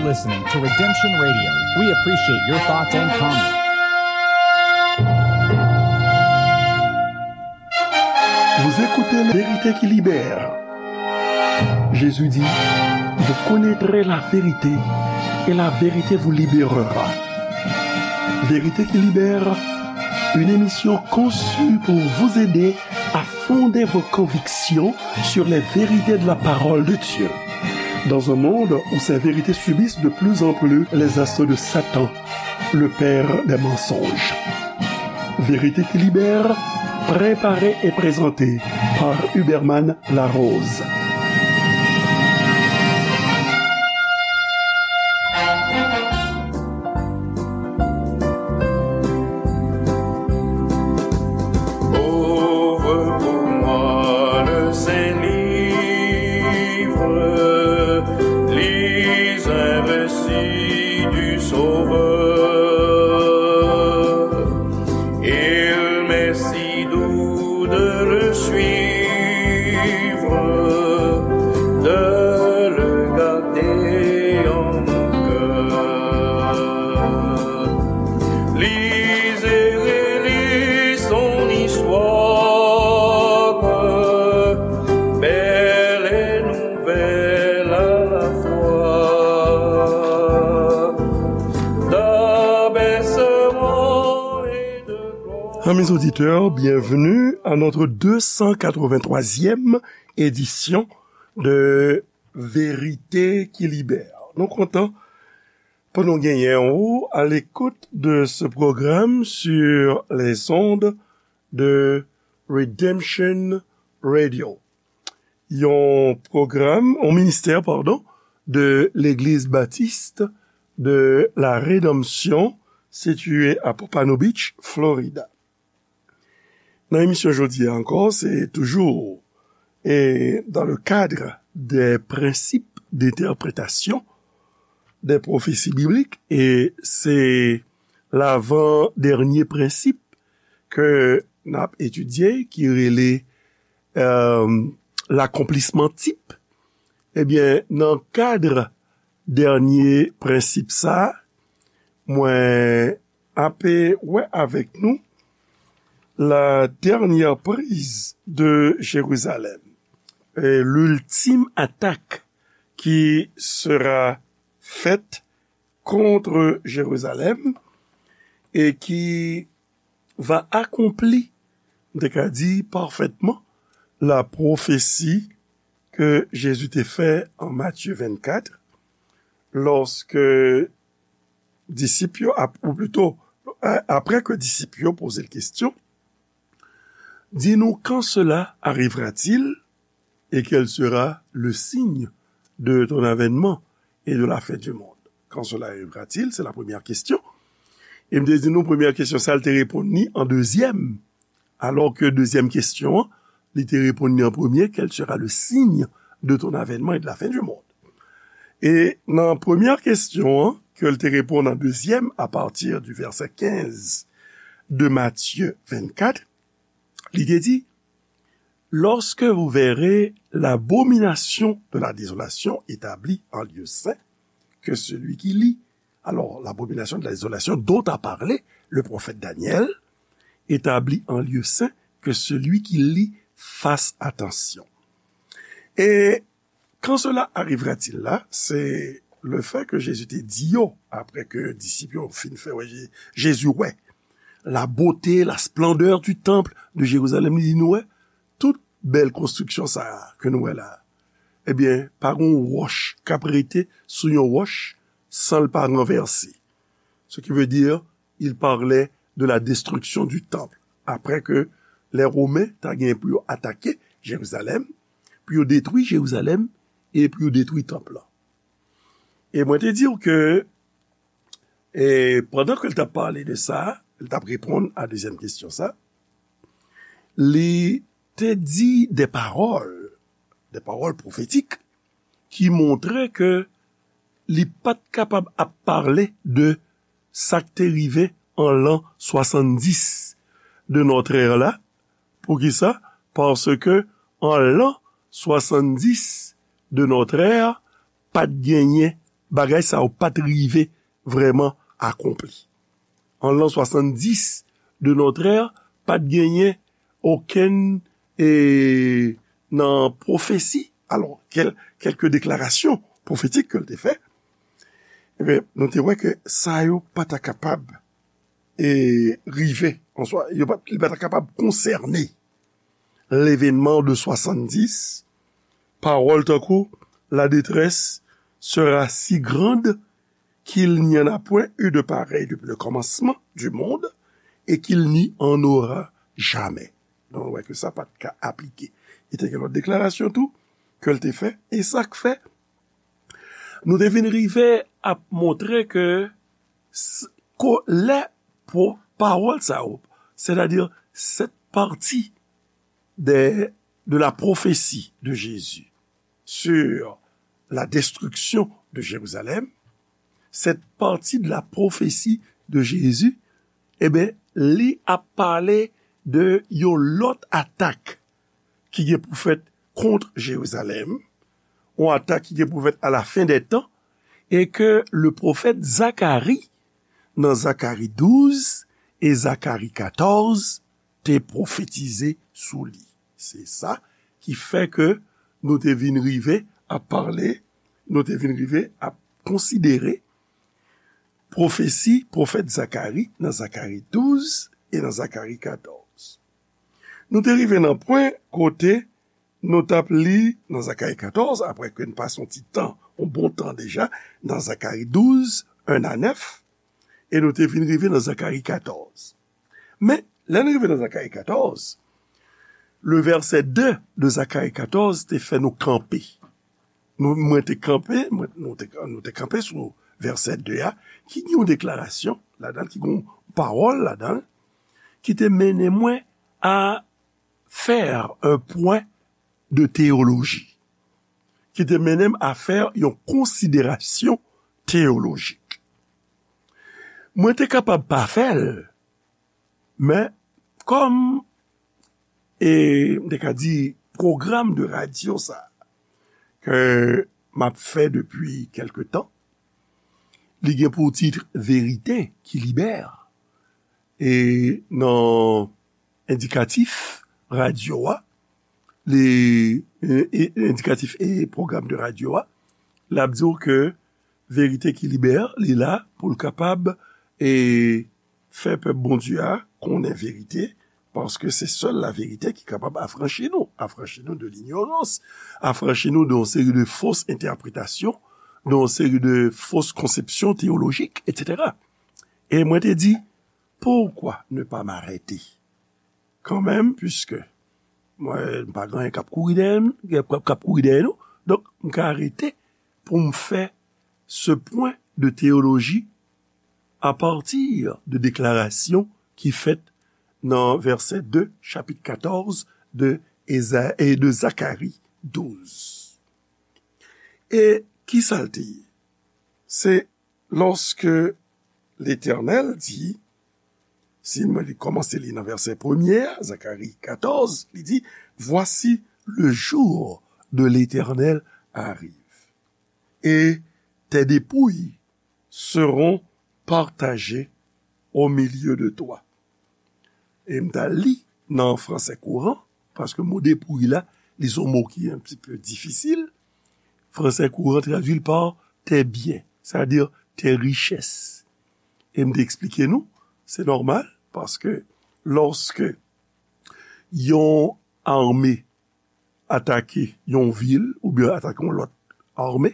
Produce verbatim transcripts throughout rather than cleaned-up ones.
Listening to Redemption Radio. We appreciate your thoughts and comments. Vous écoutez La Vérité qui Libère. Jésus dit, vous connaîtrez la vérité et la vérité vous libérera. Vérité qui Libère, une émission conçue pour vous aider à fonder vos convictions sur les vérités de la parole de Dieu. Dans un monde où ces vérités subissent de plus en plus les assauts de Satan, le père des mensonges. Vérité qui Libère, préparée et présentée par Huberman Larose. Ouvre pour moi le Saint-Livre, lis un récit du Sauveur. Il m'est si doux de le suivre, de le garder en mon cœur. Lisez et relisez son histoire, belle et nouvelle à la fois. D'abaissement et de gloire. Amis auditeurs, bienvenue à notre deux cent quatre-vingt-troisième édition de Vérité qui Libère. Nou kontan pou nou genyen ou à l'écoute de ce programme sur les ondes de Redemption Radio. Yon pwogram, yon ministè, padon, de Legliz Batis de la Redanmsyon, sitiye a Pompano Beach, Florida. Nan emisyon jodi a ankò, se toujou, e, dans le cadre des principes d'interprétation des prophéties bibliques, e se lavan dènye prensip ke n ap etidye, ki rele, e, l'accomplissement type. Ebyen, nan kad dènye prensip sa, mwen ape wè avèk nou la dernière prise de Jérusalem, e, l'ultime attaque qui sera faite contre Jérusalem et qui va accomplir, m te ka di parfaitement, la prophétie que Jésus te fè an Matthieu vingt-quatre, lorsque disip yo, ap-, ou plito, a-, apre ke disip yo poze l kesyon, dis-nous, quand cela arrivera-t-il et quel sera le signe de ton avènement et de la fin du monde? Quand cela arrivera-t-il? Se la premyè kesyon. E m te di nou, premyè kesyon sa, l te reponn li an dezyèm. Alò ke dezyèm kesyon an, li te reponn li an premye, quel sera le signe de ton avènement et de la fin du monde? E nan premyè kesyon an, ke l te reponn an dezyèm, à partir du verset quinze de Matthieu vingt-quatre, li te di, lorsque vous verrez l'abomination de la désolation établie en lieu saint, que celui qui lit Alors, l'abomination de la désolation dont a parlé le prophète Daniel, établie en lieu saint, que celui qui lit fasse attention. Et quand cela arrivera-t-il là, c'est le fait que Jésus te di yo, apre ke disip yo fin fè wè Je-, Jezi wè la beauté, la splendeur du temple de Jérusalem, li di nou wè, tout bèl konstriksyon sa a ke nou wè la a, ebyen, pa gen yon wòch k ap rete sou yon wòch san l pa ranvèse. Ce qui veut dire, il parlait de la destruction du temple. Apre ke lè Women ta gen pou yo atake Jerizalèm, pou yo detwi Jerizalèm e pou yo detwi tanp lan. E mwen te di w ke, e pandan ke l t ap pale de sa, l t ap reponn a dezyèm kesyon sa, li te di de pawòl, de pawòl pwofetik ki montre ke li pa t kapab ap pale de sa k te rive an lan swasanndis de notre ère la. Poukisa? Paske an lan swasanndis de notre ère, pa t genyen bagay sa yo pa t rive vrèman akonpli. An lan swasanndis de notre ère, pa t genyen okenn, e, nan pwofesi, alò, kèl-, kèlke deklarasyon pwofetik ke l te fè, ebyen, nou te wè ke sa yo pa ta kapab, e, rive, an swa, yo pa, li pa ta kapab konsène l'événement de soixante-dix, pawòl tankou la détresse sera si grande qu'il n'y en a point eu de pareil depuis le commencement du monde et qu'il n'y en aura jamais. Donk, nou wè ke sa pa t ka aplike. E te gen lòt deklarasyon tou ke l te fè. E sa k fè, nou te vin rive ap montre ke s-, ko-, lè po-, pawòl sa yo, c'est-à-dire cette partie de, de la prophétie de Jésus sur la destruction de Jérusalem, cette partie de la prophétie de Jésus, e ben, li ap pale de yon lòt atak ki gen pou fèt kont Jerizalèm, yon atak ki gen pou fèt à la fin des temps, e ke le pwofèt Zakari, nan Zakari douz e Zakari katòz, te pwofetize sou li. Se sa ki fè ke nou te vin rive ap pale, nou te vin rive ap konsidere pwofesi pwofèt Zakari nan Zakari douz e nan Zakari katòz. Nou te rive nan pwen kote nou t ap li nan Zakari katòz, apre ke n pase yon ti tan, yon bon tan deja, nan Zakari douz, en a nèf, e nou te vin rive nan Zakari katòz. Men, lè n rive nan Zakari katòz, le vèsè de de Zakari katòz te fè nou kanpe. Nou, mwen te kanpe, mwen, nou te, nou te kanpe sou vèsè de a, ki gen yon deklarasyon ladan l, ki gen yon pawòl ladan l, ki te mennen mwen a faire un point de théologie, ki te mennen m a fè yon konsiderasyon teyolojik. Mwen te kapab pa fè l, men kòm, e, m te ka di, pwogram de radyo sa ke m ap fè depi kèlke tan, li gen pou tit Verite ki libè. E nan endikatif radyo a, li, e, e, endikatif e pwogram de radyo a, l ap di w ke Verite ki libè, li la pou l kapab, e, fè pèp Bondye a konnen verite, paske se sèl la verite ki kapab afranchi nou, afranchi nou de linyorans, afranchi nou de yon seri de fos entèpretasyon, de yon seri de fos konsepsyon teyolojik, etsetera. E mwen te di, pourquoi ne pas m'arrêter quand même, puisque mwen, m pa gen anyen k ap kouri dèyè m, k ap, k ap kouri dèyè nou. Donk, m ka rete pou m fè ce point de théologie à partir de deklarasyon ki fèt nan vèsè de chapit katòz de Eza-, e de Zakari douz. E ki sa l te ye? Se lòske Letènèl di, si mwen li kòmanse li nan vèsè premye a, Zakari katòz, li di, Voici, le jour de l'Éternel arrive, et tes dépouilles seront partagées au milieu de toi. E m ta li nan fransè kouran, paske mo depouy la, li se yon mo ki un petit peu difisil. Fransè kouran tradui l pa tes biens, c'est-à-dire tes richesses. E m te eksplike nou, se nòmal, paske lòske yon ame atake yon vil oubyen atake yon lòt ame,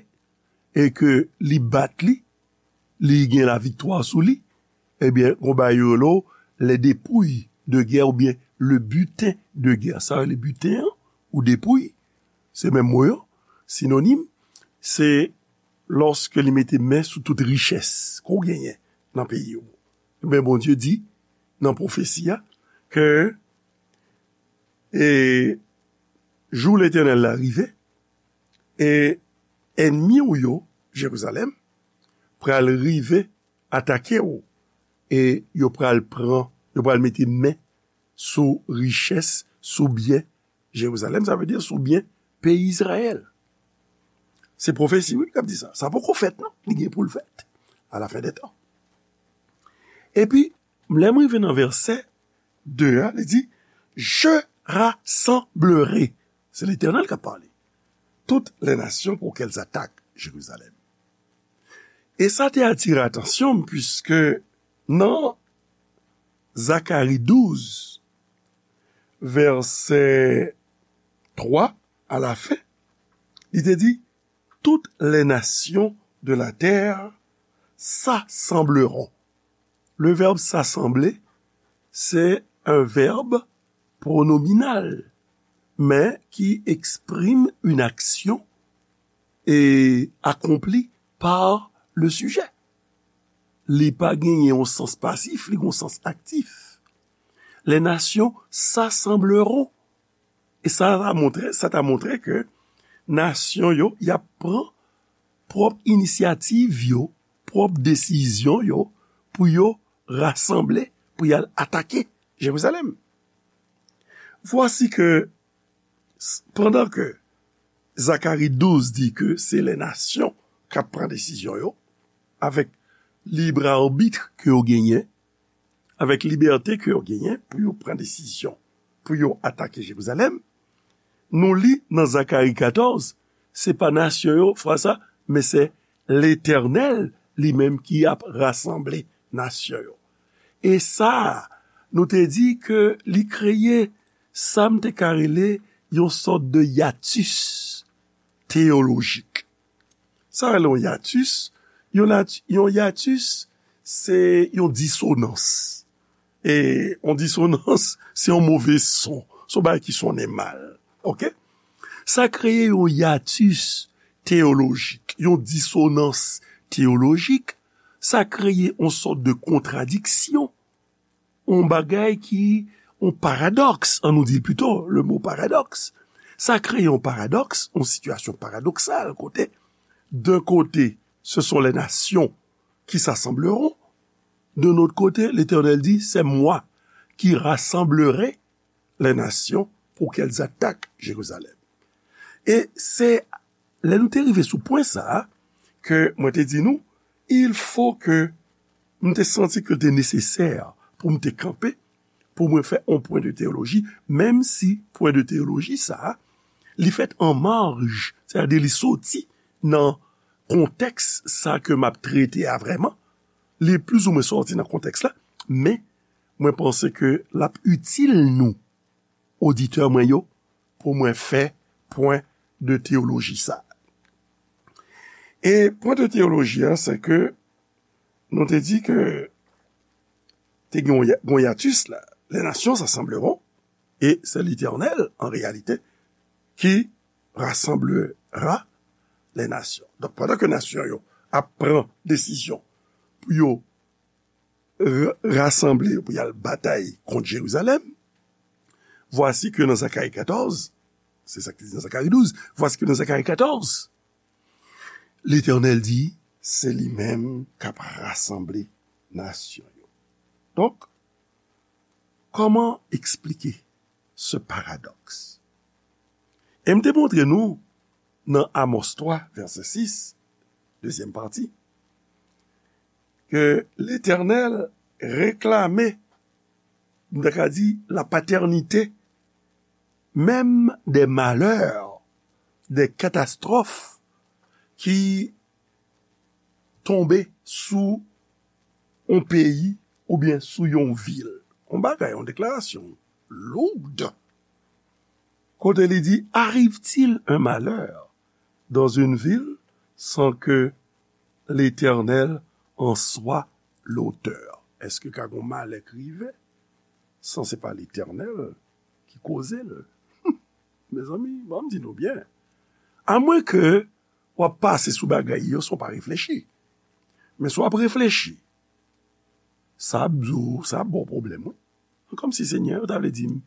e ke li bat li, li gen laviktwa sou li, ebyen, gon bagay yo rele les dépouilles de guerre oubyen le butin de guerre. Sa yo rele butin an, ou depouy, se menm mo yo, sinonim, se lòske li mete men sou tout richès ke w genyen nan peyi w. Ebyen, Bondye di nan pwofesi a ke, e, jou Letènèl la rive, e ènmi w yo, Jerizalèm, pral rive atake w, e yo pral pran, yo pral mete men sou richès, sou byen Jerizalèm, sa vle di sou byen peyi Izrayèl. Se pwofesi, wi, k ap di sa. Sa poko fèt, non. Li gen pou l fèt. A la fen dè tan. Epi, lè m rive nan vèsè de a, li di, Je rassemblerai. Se Letènèl k ap pale. Toutes les nations pour qu'elles attaquent Jérusalem. E sa te atire atansyon m, piske nan Zakari douz, vèsè twa, a la fen, li te di, Toutes les nations de la terre s'assembleront. Le verbe s'assembler, c'est un verbe pronominal, mais qui exprime une action et accomplie par le sujet. Li pa genyen yon sans pasif, li gen yon sans aktif. Les nations s'assembleront. E sa ta montre, sa ta montre ke nasyon yo, y ap pran pwòp inisyativ yo, pwòp desizyon yo, pou yo rasanble, pou y al atake Jerizalèm. Vwasi ke, s- pandan ke Zakari douz di ke se lè nasyon k ap pran desizyon yo, avèk libre arbitre ke yo genyen, avèk libète ke yo genyen pou yo pran desizyon, pou yo atake Jerizalèm, nou li nan Zakari katòz, se pa nasyon yo, fwa sa, men se Letènèl li menm ki ap rasanble nasyon yo. E sa, nou te di ke li kreye sa m te ka rele yon sòt de yatis teyolojik. Sa rele yon yatis, yon, nat- yon yatis, se yon disonans. E yon disonans, se yon move son. Se yon bagay ki sonnen mal. Oke? Sa kreye yon yatis teyolojik, yon disonans teyolojik. Sa kreye yon sòt de kontradiksyon, yon bagay ki, yon paradòks, an nou di l pito, le mo paradòks. Sa kreye yon paradòks, yon sitiyasyon paradoksal, kote, d'un côté, ce sont les nations qui s'assembleront, d'un autre côté, l'Éternel dit, c'est moi qui rassemblerai les nations pour qu'elles attaquent Jérusalem. E se lè nou te rive sou pwen sa a, ke mwen te di nou, il faut que m te santi ke l te nesesè pou m te kanpe, pou mwen fè yon pwen de teyoloji, menm si pwen de teyoloji sa a, li fèt an maj, sètadi li soti nan kontèks sa ke m ap trete a vrèman, li plizoumwen sòti nan kontèks la, men mwen panse ke l ap itil nou, oditè mwen yo, pou mwen fè pwen de teyoloji sa. E pwen de teyoloji a, se ke nou te di ke te gen yon ya- yon yatis la, les nations s'assembleront, et c'est l'Éternel, en réalité, qui rassemblera les nations. Donk, pandan ke nasyon yo ap pran desizyon pou yo r- rasanble yo pou y al batay kont Jerizalèm, vwasi ke nan Zakari katòz, se sa ki di nan Zakari douz, vwasi ke nan Zakari katòz, Letènèl di, se li menm k ap rasanble nasyon yo. Donk, kòman eksplike se paradòks? E m te montre nou nan Amos twa, vèsè sis, dezyèm pati, ke Letènèl reklame, m ta ka di, la patènite menm dè malè, dè katastwòf ki tonbe sou yon peyi oubyen sou yon vil. Yon bagay, yon deklarasyon lourd. Kote li di, arrive-t-il un malheur dans une ville sans que l'Éternel en soit l'auteur? Èske ka gon malè k rive san se pa Letènèl ki koze l? Mezanmi, ban m di nou byen. Amwen ke w ap pase sou bagay yo san w pa reflechi. Men si w ap reflechi, sa ap di w, sa ap ba w pwoblèm, wi. Kòmsi Senyè, ou ta vle di m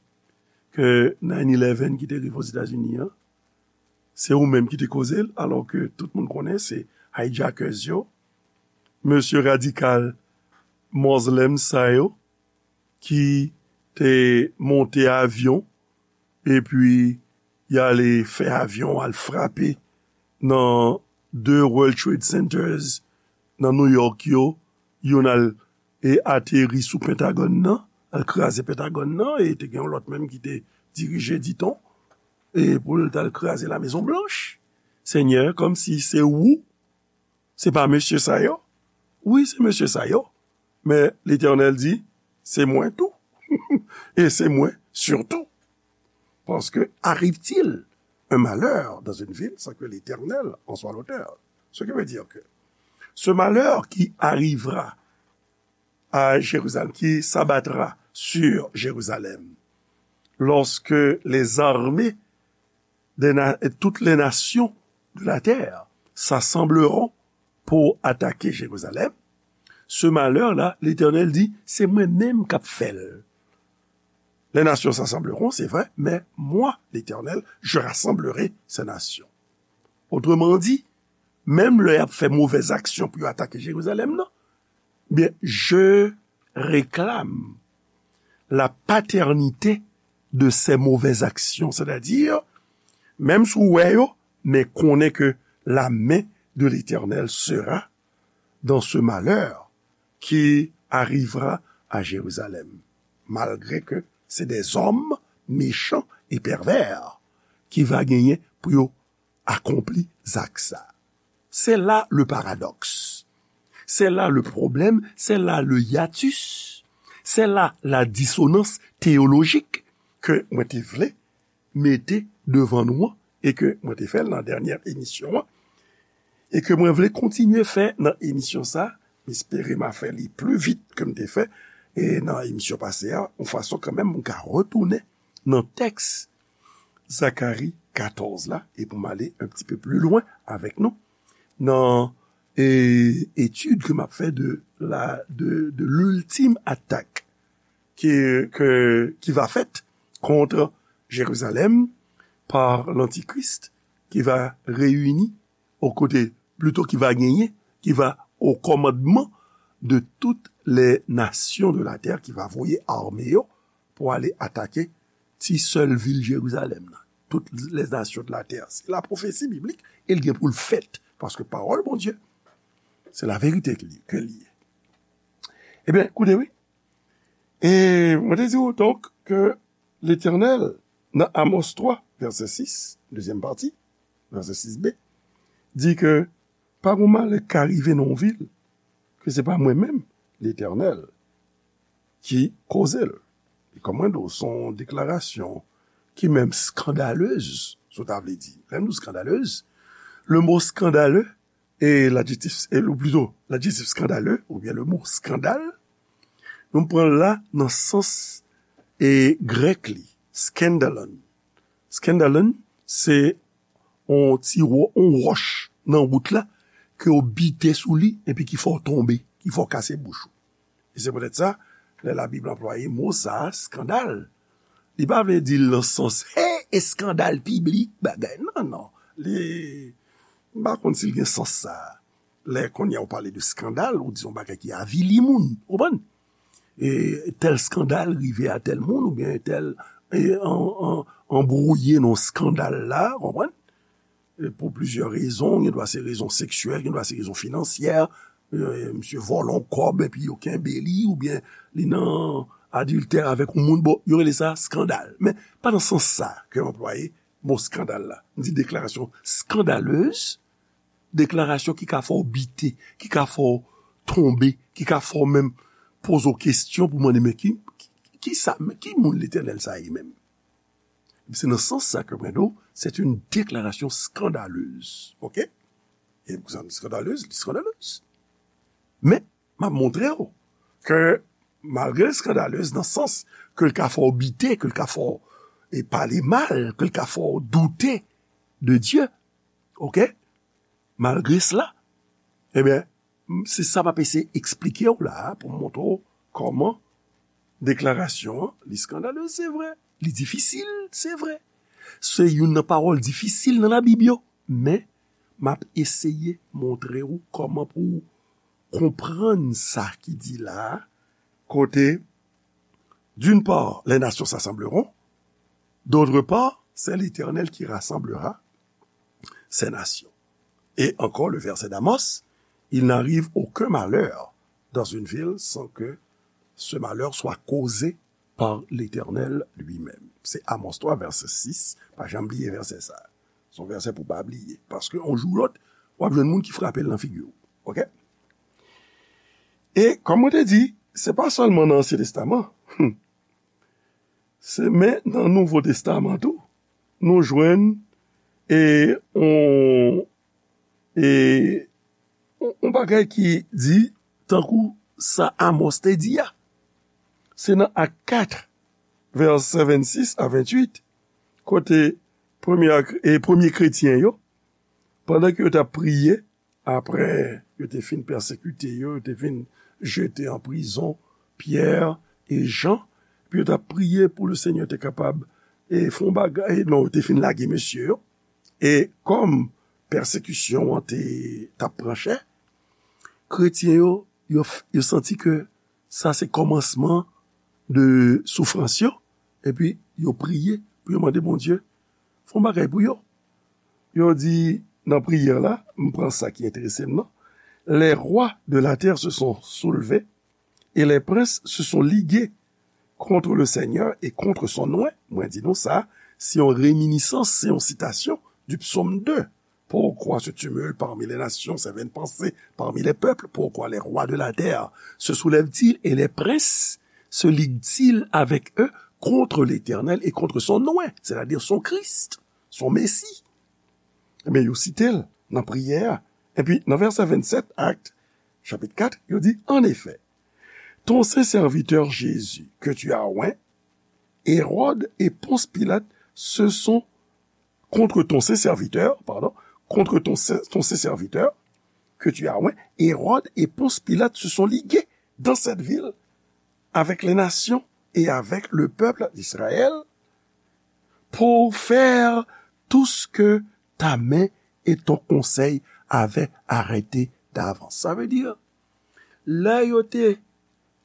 ke nine eleven ki te rive Ozetazini an, se ou menm ki te koze l, alò ke tout moun konnen se hijackers yo, mesye radikal Muslim sa yo, ki te monte avyon, epi y ale fè avyon al frape nan de World Trade Centers nan New York yo, youn al e ateri sou Pentagòn nan, al kraze Pentagòn nan, e te gen yon lòt menm ki te dirije, diton, e pou l t al kraze la Mezon Blanch. Senyè, kòmsi se ou, se pa mesye sa yo? Wi, se mesye sa yo. Men Letènèl di, se mwen tou. E se mwen sitou. Parce que arrive-t-il un malheur dans une ville sans que l'Éternel en soit l'auteur? Ce qui veut dire que ce malheur qui arrivera à Jérusalem, qui s'abattra sur Jérusalem, lorsque les armées des na- toutes les nations de la terre s'assembleront pour attaquer Jérusalem, ce malheur-là, l'Éternel dit, c'est moi-même qui fais. Les nations s'assembleront, c'est vrai, mais moi, l'Éternel, je rassemblerai ces nations. Autrement dit, menm lè y ap fè movèz aksyon pou yo atake Jerizalèm nan, byen, je réclame la paternité de ces mauvaises actions. Sètadi, menm si w wè yo, men konnen ke la main de l'Éternel sera dans ce malheur qui arrivera à Jérusalem. Malgré que c'est des hommes méchants et pervers qui va genyen pou yo akonpli zak sa. C'est là le paradoxe. C'est là le problème, c'est là le hiatus, c'est là la dissonance théologique ke mwen te vle mete devan nou an e ke mwen te fè l nan dènyè emisyon an e ke mwen vle kontinye fè nan emisyon sa. M espere m a fè li pli vit ke m te fè e nan emisyon pase a, yon fason kanmenm m ka retounen nan tèks Zakari katòz la, e pou m ale un petit peu plus loin avèk nou, nan e, etid ke m ap fè de la, de, de l'ultime attaque qui, que, qui va faite contre Jérusalem par l'Antichrist, qui va réunir aux côtés, plutôt qui va gagner, qui va au commandement de toutes les nations de la terre, qui va voye ame yo pou ale atake ti sèl vil Jerizalèm nan. Toutes les nations de la terre. Se la pwofesi biblik, e l gen pou l fèt, paske pawòl Bondye, se laverite ke li, ke li ye. Ebyen, koute wi. E mwen te di w, donk, ke Letènèl, nan Amos twa, vèsè sis, dezyèm pati, vèsè sis b, di ke pa gon malè k ka rive nan yon vil, ke se pa mwen menm, Letènèl, ki koze l. E kòm mwen di w, se yon deklarasyon ki menm skandalez, si w ta vle di. Lè m di w skandalez, le mo skandale, e ladjektif, e, ou plito, ladjektif skandale, oubyen le mo skandal, nou pran l la nan sans e grèk li, skandalon. Skandalon, se yon ti wò-, yon wòch nan wout la, ke w bite sou li, epi ki fè w tonbe, ki fè w kase bouch ou. E se poutèt sa, lè Labib anplwaye mo sa a, skandal, li pa vle di l nan sans, hey, eskandal piblik, bagay. Non, non. Li, m pa konn si l gen sans sa a. Lè kounye a w pale de skandal, ou di yon bagay ki avili moun, ou konprann? E tèl skandal rive a tèl moun, oubyen tèl, e, an, an, anbwouye nan skandal la, ou konprann? E pou plizyè rezon, gen dwa se rezon seksyèl, gen dwa se rezon finansyè, e, misye vòlè yon kòb epi yo kenbe li, oubyen li nan adiltè avèk yon moun, bon, yo rele sa skandal. Men pa nan sans sa ke m anplwaye mo skandal la. M di deklarasyon skandalez, deklarasyon ki ka fè w bite, ki ka fè w tonbe, ki ka fè w menm poze w kesyon pou mande, men ki, ki, ki sa, men ki moun Letènèl sa ye menm? Se nan sans sa ke mwen di w, c'est une déclaration scandaleuse. Oke? E pou sa, skandalez, li skandalez. Men, m ap montre w ke malgre l skandalez nan sans ke l ka fè w bite, ke l ka fè w, e, pale mal, ke l ka fè w doute de Dye, oke? Malgre sela, ebyen, m, se sa m ap eseye eksplike w la a pou m montre w kòman deklarasyon an, li skandalez, se vre, li difisil, se vre. Se youn nan pawòl difisil nan Labib yo, men m ap eseye montre w kòman pou w konprann sa ki di la a, kote, d'une part, les nations s'assembleront, d'autre part, c'est l'Éternel qui rassemblera ces nations. Et encore le verset d'Amos, il n'arrive aucun malheur dans une ville sans que ce malheur soit causé par l'Éternel lui-même. Se Amos twa, vèsè sis. Pa janm bliye vèsè sa. Se yon vèsè pou pa bliye. Paske yon jou ou lòt, w ap jwenn moun ki frape l nan figi w. Oke? E kòm mwen te di, se pa sèlman nan Ansyen Testaman. Se, men nan Nouvo Testaman tou, nou jwenn e on, e on, on bagay ki di tankou sa Amos te di a. Se nan Ak kat, vèsè vennsis a venntuit, kote premye, e premye kretyen yo, pandan ke yo t ap priye, apre yo te fin pèsekite yo, yo te fin jete an prizon Pyè e Jan, epi yo t ap priye pou le Senyè te kapab e fè yon bagay, non, yo te fin lage mesye yo. E kòm pèsekisyon an te, t ap pran chè, kretyen yo, yo, yo santi ke sa se kòmansman de soufrans yo, epi yo priye pou yo mande Bondye fè yon bagay pou yo. Yo di nan priyè la, m pran sa ki enterese m nan, les rois de la terre se sont soulevés et les princes se sont ligués contre le Seigneur et contre son oint. Mwen di nou sa, se yon reminisans, se yon sitasyon du psaume deux. Pourquoi ce tumulte parmi les nations, ces vaines pensées parmi les peuples? Pourquoi les rois de la terre se soulèvent-ils et les princes se liguent-ils avec eux contre l'Éternel et contre son oint, c'est-à-dire son Christ, son Messie? Ebyen, yo site l nan priyè a. Epi, nan vèsè vennsèt, Actes, chapitre quatre, yo di, en effet, ton saint serviteur Jésus, que tu as oint, Hérode et Ponce Pilate se sont contre ton saint serviteur, pardon, contre ton saint, ton saint serviteur, que tu as oint, Hérode et Ponce Pilate se sont ligués dans cette ville avec les nations et avec le peuple d'Israël pour faire tout ce que ta main et ton conseil avaient arrêté d'avance. Sa vle di, lè yo te,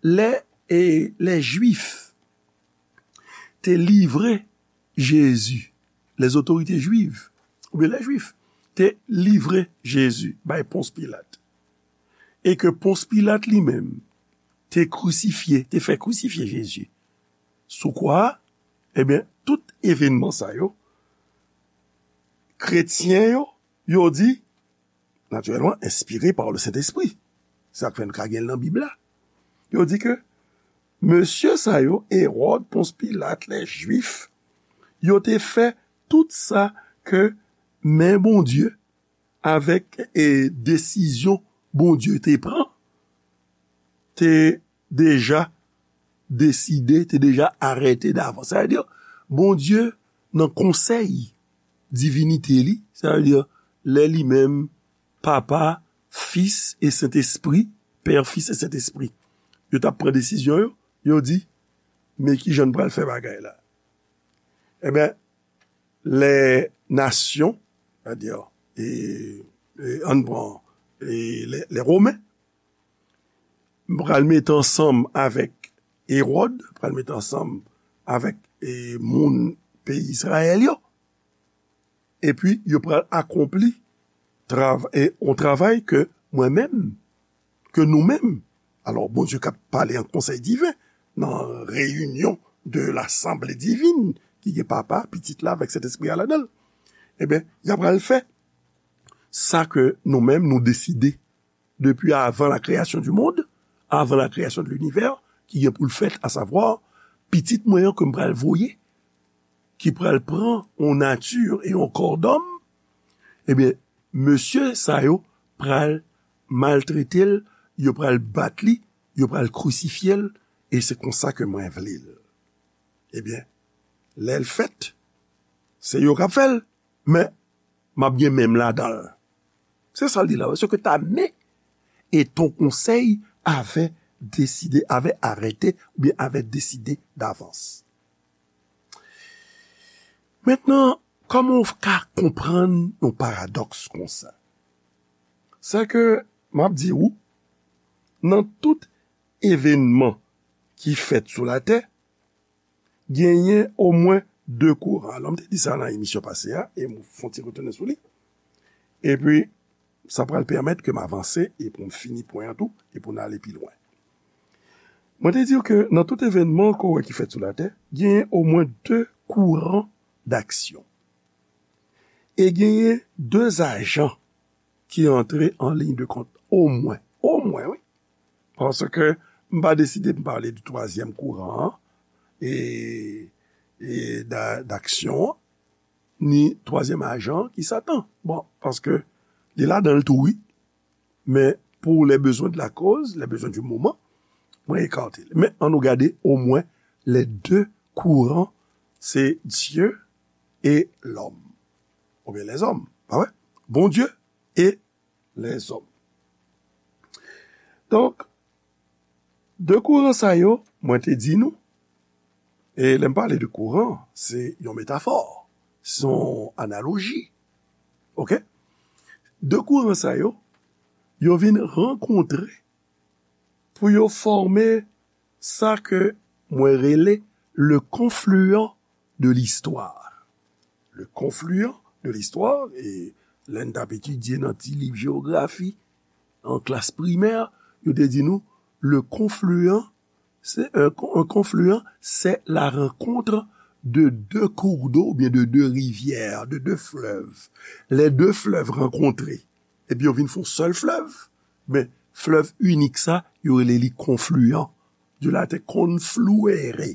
lè, e, lè Jwif te livre Jezi, les autorités juives, oubyen lè Jwif te livre Jezi bay Pons Pilat, e ke Pons Pilat li menm te krisifye, te fè krisifye Jezi sou kwa a, ebyen, tout evènman sa yo, kretyen yo, yo di, natirèlman, enspire pa le Sentespri. Sa k fè n ka gen l nan Bib la. Yo di ke mesye sa yo, Ewòd, Pons Pilat, lè Jwif, yo te fè tout sa ke men Bondye, avèk, e, desizyon Bondye te pran, te deja deside, te deja arete davans. Sa vle di, Bondye, nan konsèy divinite li, sa vle di, lè li menm, Papa, Fis e Sentespri, Pè, Fis e Sentespri, yo t ap pran desizyon yo, yo di, men ki jan n pral fè bagay la. Ebyen, les nations, c'est-à-dire, e, e, ann pran, e, les, les Romains, pral mete ansanm avèk Ewòd, pral mete ansanm avèk, e, moun peyi Izrayèl yo. Epi, yo pral akonpli trav-, e, yon travay ke mwen menm, ke nou menm. Alò, Bondye k ap pale an konsèy diven, nan reyinyon de lasanble divin, ki gen Papa, Pitit la, avèk Sentespri a ladan l. Ebyen, y ap pral fè sa ke nou menm nou deside depi avan la création du monde, avant la création de l'univers, ki gen pou l fèt, asavwa, Pitit mwen an ke m pral voye, ki pral pran yon nati e yon kò dòm, ebyen, mesye sa yo pral maltrete l, yo pral bat li, yo pral krisifye l, e se konsa ke mwen vle l. Ebyen, lè l fèt, se yo k ap fè l, men m ap gen men m ladan l. Se sa l di la, ce que ta main et ton conseil avaient décidé, avaient arrêté, oubyen avaient décidé d'avance. Mentnan, kòman w ka konprann yon paradòks konsa? Se ke, m ap di w, nan tout evènman ki fèt sou latè, genyen omwen de kouran. Alò, m te di sa nan emisyon pase a, e m fè yon ti retounen sou li. Epi, Sa pral pèmèt ke m avanse e pou m fini pwen an tou e pou n ale pi lwen. Mwen te di w ke nan tout evènman ke w wè ki fèt sou latè, genyen omwen de kouran daksyon. E genyen de ajan ki antre an liy de kont, omwen. Omwen, wi. Paske m pa deside m pale de twazyèm kouran an, e, e da-, daksyon an, ni twazyèm ajan ki Satan. Bon, paske li ladan l tou, wi. Men pou les besoins de la cause, les besoins du moment, mwen ekate l. Men ann nou gade omwen les deux courants, se Dieu et l'homme. Oubyen les hommes, pa vre? Bondye e les hommes. Donk, de kouran sa yo, mwen te di nou, e lè m pale de kouran, se yon metafò, se yon analoji. Oke? De kouran sa yo, yo vin rankontre pou yo fòme sa ke mwen rele le confluent de l'histoire. Le confluent de l'histoire, e lè n t ap etidye nan ti liv jewografi, an klas primè, yo te di nou, le confluent, c'est un, un confluent, c'est la rencontre de deux cours d'eau, oubyen de deux rivières, de deux fleuves. Les deux fleuves rencontrés. Epi yo vin fè yon sèl flèv. Men, flèv inik sa, yo rele li confluent. De la te confluere,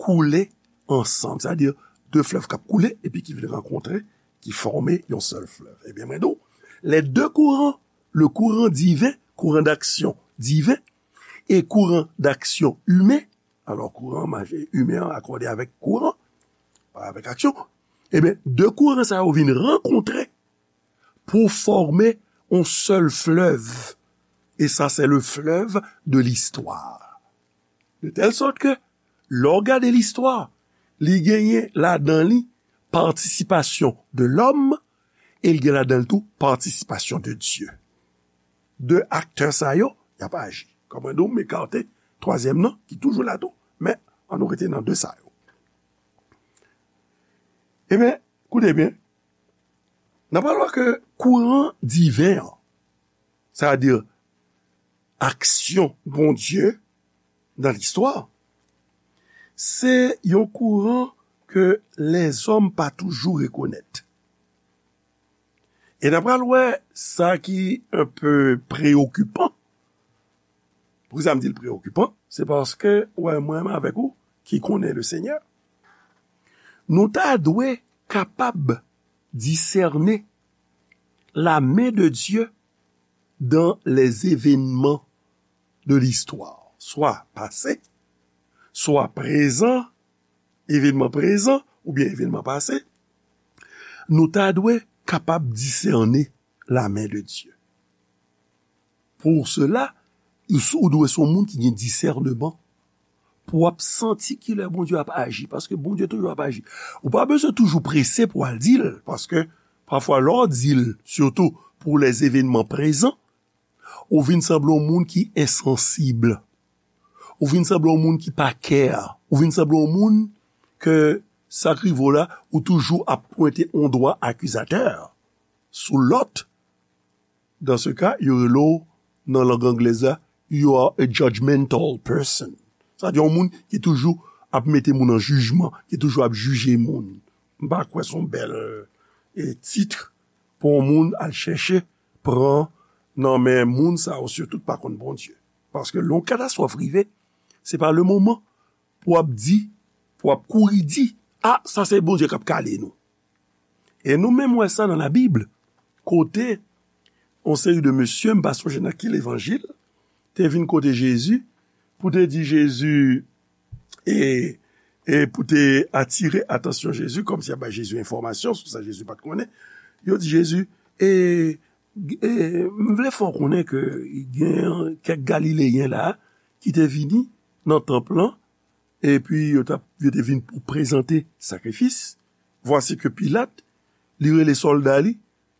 koule ansanm. Sa vle di, de flèv k ap koule, epi ki vin rankontre, ki fòme yon sèl flèv. Ebyen, mwen di w, les deux courants, le courant divin, courant d'action divin, e courant d'action humain, alò, kouran imen an akòde avèk kouran, pa avèk aksyon, ebyen, de kouran sa yo vin rankontre pou fòme yon sèl flèv. E sa, se le fleuve de l'histoire. De telle sorte que, lè w gade listwa, li genyen ladan li patisipasyon de lòm e li gen ladan l tou patisipasyon de Dye. De aktè sa yo, y ap aji. Kòm mwen di w, m ekate twazyèm nan, ki toujou la tou, men ann nou rete nan de sa yo. Ebyen, koute byen, n ap pral wè ke kouran diven an, sa vle di aksyon Bondye nan listwa, se yon kouran ke lèzòm pa toujou rekonèt. E n ap pral wè sa ki enpe preyokipan. Poukisa m di l preyokipan? Se paske, wè, mwen menm avèk ou ki konnen le Senyè, nou ta dwe kapab disène la men de Dye dans les événements de l'histoire, swa pase, swa prezan, evènman prezan oubyen evènman pase, nou ta dwe kapab disène la men de Dye. Pou sela, ou dwe se yon moun ki gen disèneman, pou w ap santi kilè Bondye ap aji, paske Bondye toujou ap aji. Ou pa bezwen toujou prese pou w al di l, paske pafwa lè w di l, sitou pou les événements prezan, ou vin sanble yon moun ki ensansib. Ou vin sanble yon moun ki pa care. Ou vin sanble yon moun ke sa k rive w la, ou toujou ap pwente yon dwa akizatè sou lòt. Dans ce cas, yo rele w nan lang anglèz la, you are a judgmental person. Sa di yon moun ki toujou ap mete moun an jijman, ki toujou ap jije moun. M pa kwè se yon bèl, e, tit pou yon moun al chèche pran nan men moun sa yo, sitou ki pa konn Bondye. Paske lè yon katastwòf rive, se pa le moman pou w ap di, pou w ap kouri di, a, sa se Bondye k ap kale nou. E nou menm wè sa nan Labib, kote yon seri de mesye, m pa sonje nan ki levanjil, te vin kote Jezi pou te di Jezi, e, e pou te atire atansyon Jezi, kòmsi y ap bay Jezi enfòmasyon sou sa Jezi pa t konnen. Yo di Jezi, e, e, m vle fè w konnen ke gen kèk Galileyen la ki te vini nan tanp lan, epi yo t ap, yo te vin pou prezante sakrifis. Vwasi ke Pilat, li rele sòlda li,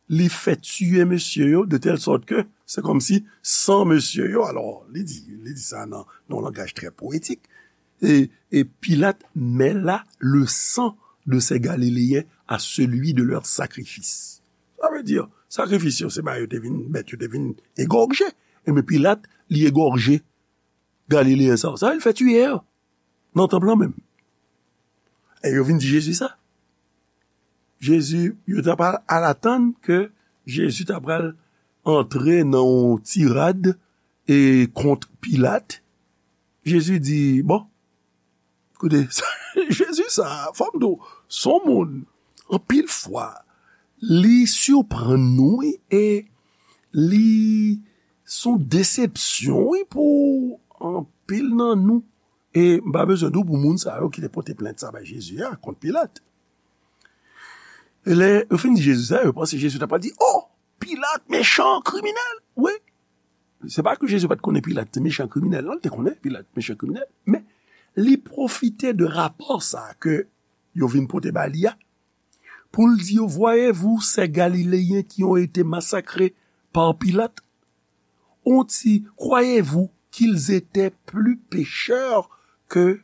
li fè tiye mesye yo, de tèl sòt ke se kòmsi san mesye yo, alò, li di, li di sa nan, nan yon langaj trè powetik, e, e Pilat mêla le sang de ces Galiléens à celui de leur sacrifice. Sa vle di, Sakrifis yo, se ba yo te vin, bèt yo te vin egòje. Ebyen, Pilat, li egòje Galileyen sa yo. Sa, li fè tiye yo nan tanp lan menm. E yo vin di Jezi sa. Jezi, yo ta pral al atann ke Jezi ta pral antre nan yon tirad e kont Pilat. Jezi di, bon, koute, Jezi sa, fò m di w, se yon moun, anpil fwa, li siprann nou, wi, e li se yon desepsyon, wi, pou anpil nan nou. E m pa bezwen di w pou moun sa yo ki te pote plent sa bay Jezi a kont Pilat. E lè yo fin di Jezi sa, yo panse Jezi ta pral di, oh, Pilat, mechan, kriminèl. Wi. Se pa ke Jezi pa t konnen Pilat se mechan kriminèl, non, li te konnen Pilat mechan kriminèl, men li pwofite de rapò sa ke yo vin pote ba li a, pou l di yo, voyez-vous ces Galiléens qui ont été massacrés par Pilate? Ont-ils, croyez-vous qu'ils étaient plus pécheurs que,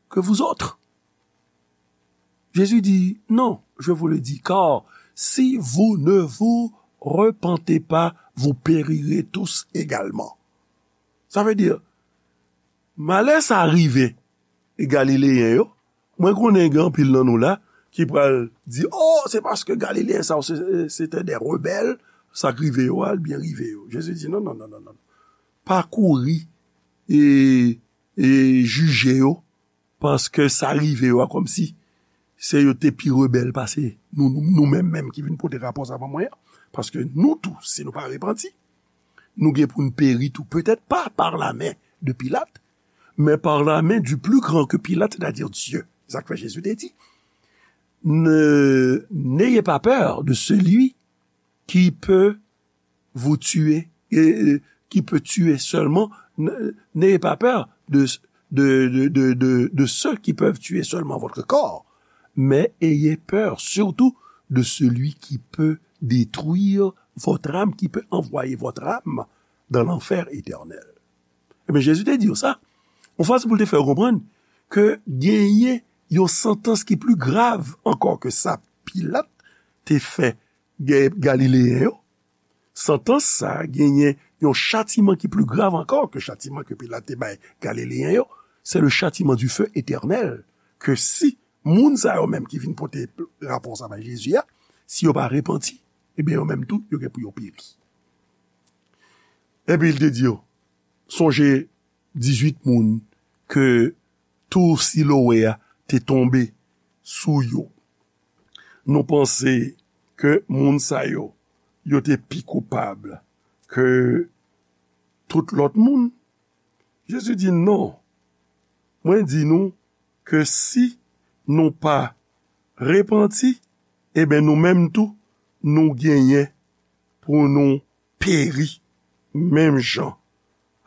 que vous autres? Jésus dit, non, je vous le dis, car si vous ne vous repentez pas, vous périrez tous également. Sa vle di, malè sa rive Galileyen yo, mwen konnen gen anpil nan nou la ki pral di, oh, se paske Galileyen sa yo, se, se te de rebèl, sa k rive yo a, l byen rive yo. Jezi di, non, non, non, non, non. Pa kouri e, e jije yo, paske sa rive yo a kòmsi se yo te pi rebèl pase nou, nou, nou menm menm ki vin pote rapò sa ban mwen an. Paske nou tou, si nou pa repanti, nou gen pou n peri tou. Petèt pa par la main de Pilate, mais par la main du plus grand que Pilate, c'est-à-dire Dieu. Sa k fè Jezi te di, ne, n'ayez pas peur de celui qui peut vous tuer, et, euh, qui peut tuer seulement, n-, n'ayez pas peur de, de, de, de, de, de ceux qui peuvent tuer seulement votre corps, mais ayez peur surtout de celui qui peut détruire votre âme, qui peut envoyer votre âme dans l'enfer éternel. Ebyen, Jezi te di yo sa. Yon fason pou l te fè yo konprann ke genyen yon santans ki pli grav ankò ke sa Pilat te fè Ga-, Galileyen yo. Santans sa a genyen yon chatiman ki pli grav ankò ke chatiman ke Pilat te bay Galileyen yo. C'est le châtiment du feu éternel. Ke si moun sa yo menm ki vin pote rapò sa bay Jezi a, si yo pa repanti, ebyen, yo menm tou, yo gen pou yo peri. Epi l te di yo, sonje dizuit moun ke tou Silowe a te tonbe sou yo. Nou panse ke moun sa yo, yo te pi koupab ke tout lòt moun? Jezi di, non. Mwen di nou ke si nou pa repanti, ebyen, nou menm tou, nou genyen pou nou peri menm jan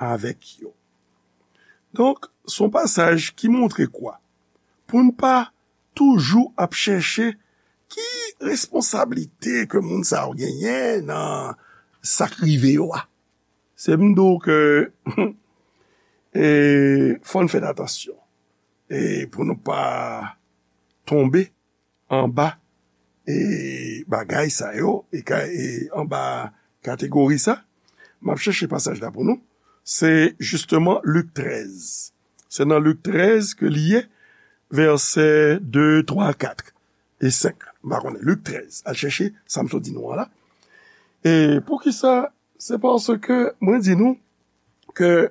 avèk yo. Donk, se yon pasaj ki montre kwa? Pou n pa toujou ap chèche ki responsablite ke moun sa yo genyen nan sa k rive yo a. Se m di w ke, e, fò n fè atansyon. E pou nou pa tonbe anba, e, bagay sa yo, e ka, e anba kategori sa, m ap chèche pasaj la pou nou. Se jisteman Lik trèz. Se nan Lik trèz ke li ye, vèsè de, twa, kat e senk. M pa konnen. Lik trèz. Al chèche sa m sot di nou an la. E poukisa? Se paske mwen di nou ke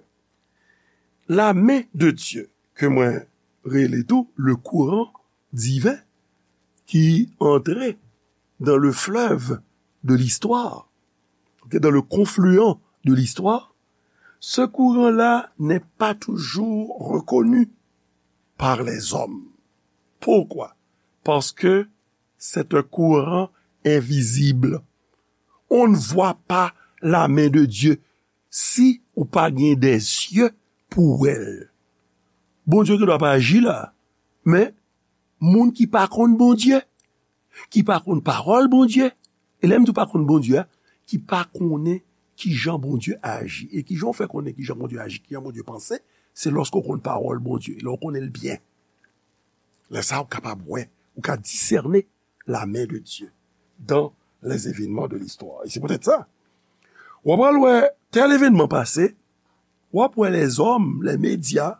la main de Dieu, ke mwen rele tou le courant divin, qui entrait dans le fleuve de l'histoire, ok, dans le confluent de l'histoire, ce courant-là n'est pas toujours reconnu par les hommes. Pourquoi? Parce que c'est un courant invisible. On ne voit pas la main de Dieu si ou pa gen de zye pou wè l. Bondye gen dwa pa aji la, men moun ki pa konn Bondye, ki pa konn pawòl Bondye, e lè m di w pa konn Bondye a, ki pa konnen kijan Bondye aji, e kijan w fè konnen kijan Bondye aji, kijan Bondye panse, se lòske w konn pawòl Bondye, lè w konnen l byen. Lè sa a, ou kapab wè, ou ka disène la main de Dieu dans les événements de l'histoire. E se poutèt sa, w ap al wè tèl evènman pase, w ap wè lèzòm, lè medya,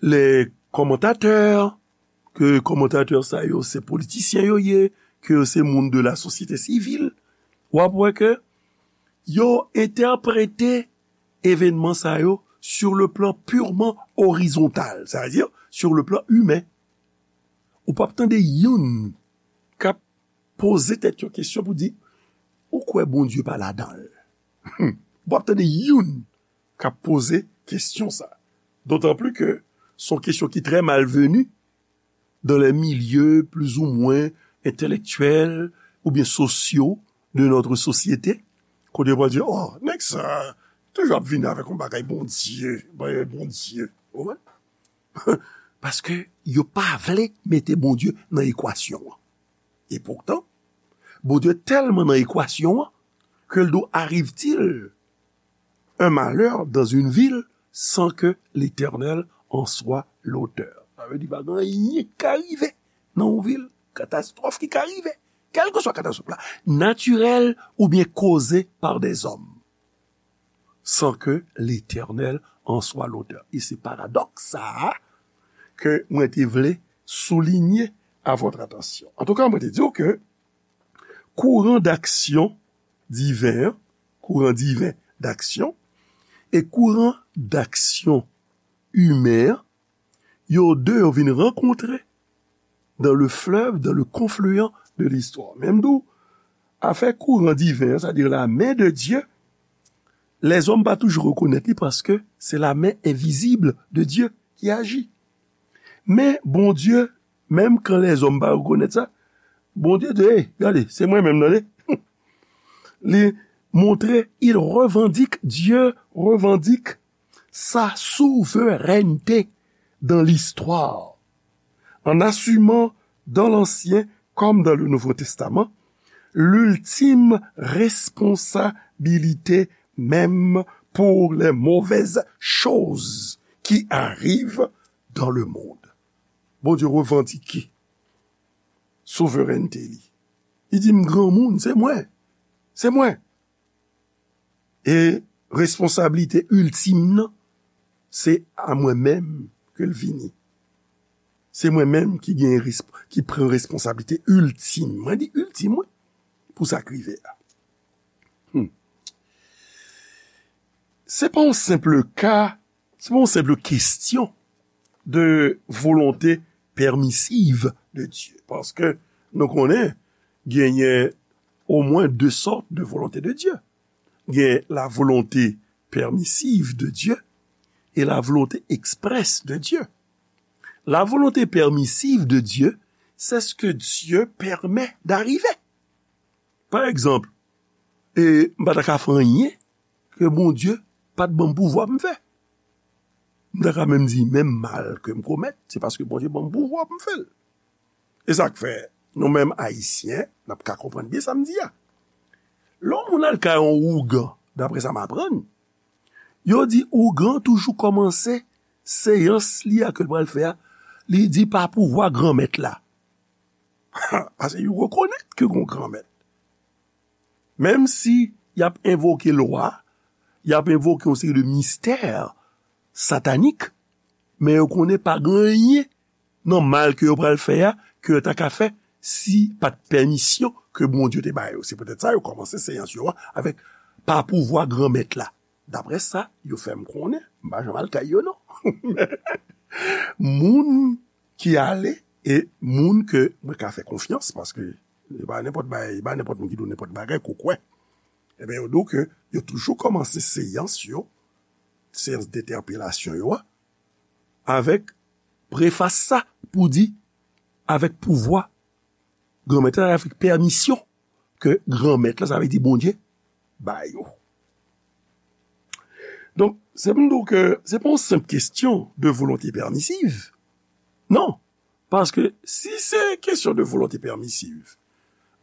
lè kòmantatè, ke kòmantatè sa yo se politisyen yo ye, ke yo se moun de la sosyete sivil, w ap wè ke yo entèprete evènman sa yo sur le plan purement horizontal, sa vle di sur le plan humain. Ou p ap tande youn k ap poze tèt yo kesyon pou di, ou kwè Bondye pa ladan l? Ou p ap tande youn k ap poze kesyon sa. D'autant plus que se yon kesyon ki trè malvenu dans les milieux plus ou moins intellectuels ou bien sociaux de notre société. Kote yo pral di, oh, nèg sa toujou ap vini avèk yon bagay Bondye, bagay Bondye. Ou konprann? Paske yo pa vle mete Bondye nan ekwasyon an. E poutan, Bondye tèlman nan ekwasyon an ke l di, arrive-t-il un malheur dans une ville sans que l'Éternel en soit l'auteur? Sa vle di, pa gen anyen ki ka rive nan yon vil, katastwòf ki ka rive, kèlkeswa katastwòf la, natirèl oubyen koze pa dèzòm, sans que l'Éternel en soit l'auteur. E se paradòks sa a ke mwen te vle soulinye à votre attention. Antouka, mwen te di w ke kouran d'aksyon diven an, kouran diven d'aksyon, e kouran d'aksyon imen an, yo de yo vin rankontre dans le fleuve, dans le confluent de l'histoire. Men m di w, afè kouran diven an, c'est-à-dire la main de Dieu, lèzòm pa toujou rekonèt li paske se la main invisible de Dieu qui agit. Men Bondye, menm kan lèzòm pa rekonèt sa, Bondye di, hey, gade, se mwen menm, tande. Li montre, il revendique, Dieu revendique sa souveraineté dans l'histoire, en assumant dans l'Ancien comme dans le Nouveau Testament l'ultime responsabilité même pour les mauvaises choses qui arrivent dans le monde. Bondye revandike souverènte li. Li di, m granmoun, se mwen. Se mwen. E responsablite iltim nan, se a mwen menm ke l vini. Se mwen menm ki gen resp-, ki pran responsablite iltim. Mwen di iltim, wi, pou sa k rive a. Hmm. Se pa yon senp ka, se pa yon senp kesyon de volonte pèmisiv de Dye. Paske nou konnen genyen omwen de sòt de volonte de Dye. Gen la volonte pèmisiv de Dye e la volonte eksprès de Dye. La volonte pèmisiv de Dye, c'est ce que Dieu permet d'arriver. Pa egzanp, e, m pa ta ka fè anyen ke Bondye pa t ban m pouvwa pou m fè. M ta ka menm di, menm mal ke m komèt, se paske Bondye ban m pouvwa pou m fè l. E sa k fè, nou menm Ayisyen, n ap ka konprann byen sa m di a. Lè yon moun al kay yon ougan, daprè sa m aprann, yo di ougan toujou kòmanse seyans li a ke l pral fè a, li di pa pouvwa Granmèt la. Paske yo rekonèt ke gon Granmèt. Menm si y ap envoke lwa, y ap envoke yon seri de mistè satanik, men yo konnen pa gen anyen nan mal ke yo pral fè a, ke yo ta ka fè si pa t pèmisyon ke Bondye te ba yo. Se poutèt sa yo kòmanse seyans yo a avèk pa pouvwa Granmèt la. Daprè sa yo fè m konnen, m pa janm al kay yo non. Moun ki ale e moun ke mwen ka fè konfyans, paske e pa nenpòt bagay, e pa nenpòt moun ki di w nenpòt bagay ke w kwè. Ebyen, yo di w ke yo toujou kòmanse seyans yo, seyans dentèpelasyon yo a, avèk prefas sa pou di, avèk pouvwa Granmèt la, avèk pèmisyon ke Granmèt la, sa vle di Bondye, ba yo. Donk, se pou m di w ke se pa yon senp kesyon de volonte pèmisiv. Non. Paske si se kesyon de volonte pèmisiv,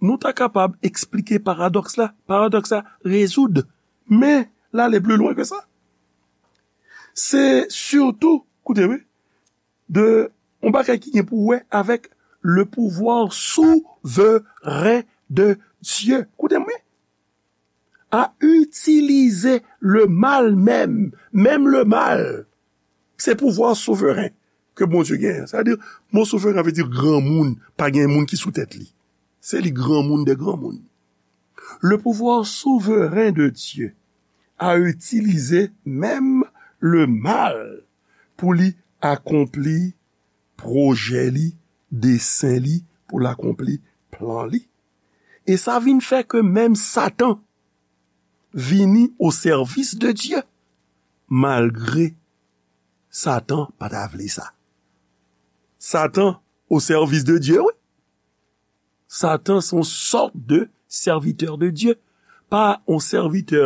nou ta kapab eksplike paradòks la, paradòks la rezoud. Men, l ale pli lwen ke sa. Se sitou, koute wi, de yon bagay ki gen pou wè avèk le pouvoir souverain de Dye, koute mwen, a itilize le mal menm, menm le mal. Se pouvwa souveren ke Bondye genyen. Sa vle di, mo souveren vle di granmoun, pa gen moun ki sou tèt li. Se li granmoun de granmoun. Le pouvoir souveren de Dieu a itilize menm le mal pou li akonpli pwojè li, desen li, pou l akonpli plan li. E sa vin fè ke menm Satan vini o sèvis de Dye, malgre Satan pa ta vle sa. Satan o sèvis de Dye, wi. Satan se yon sòt de sèvitè de Dye, pa yon sèvitè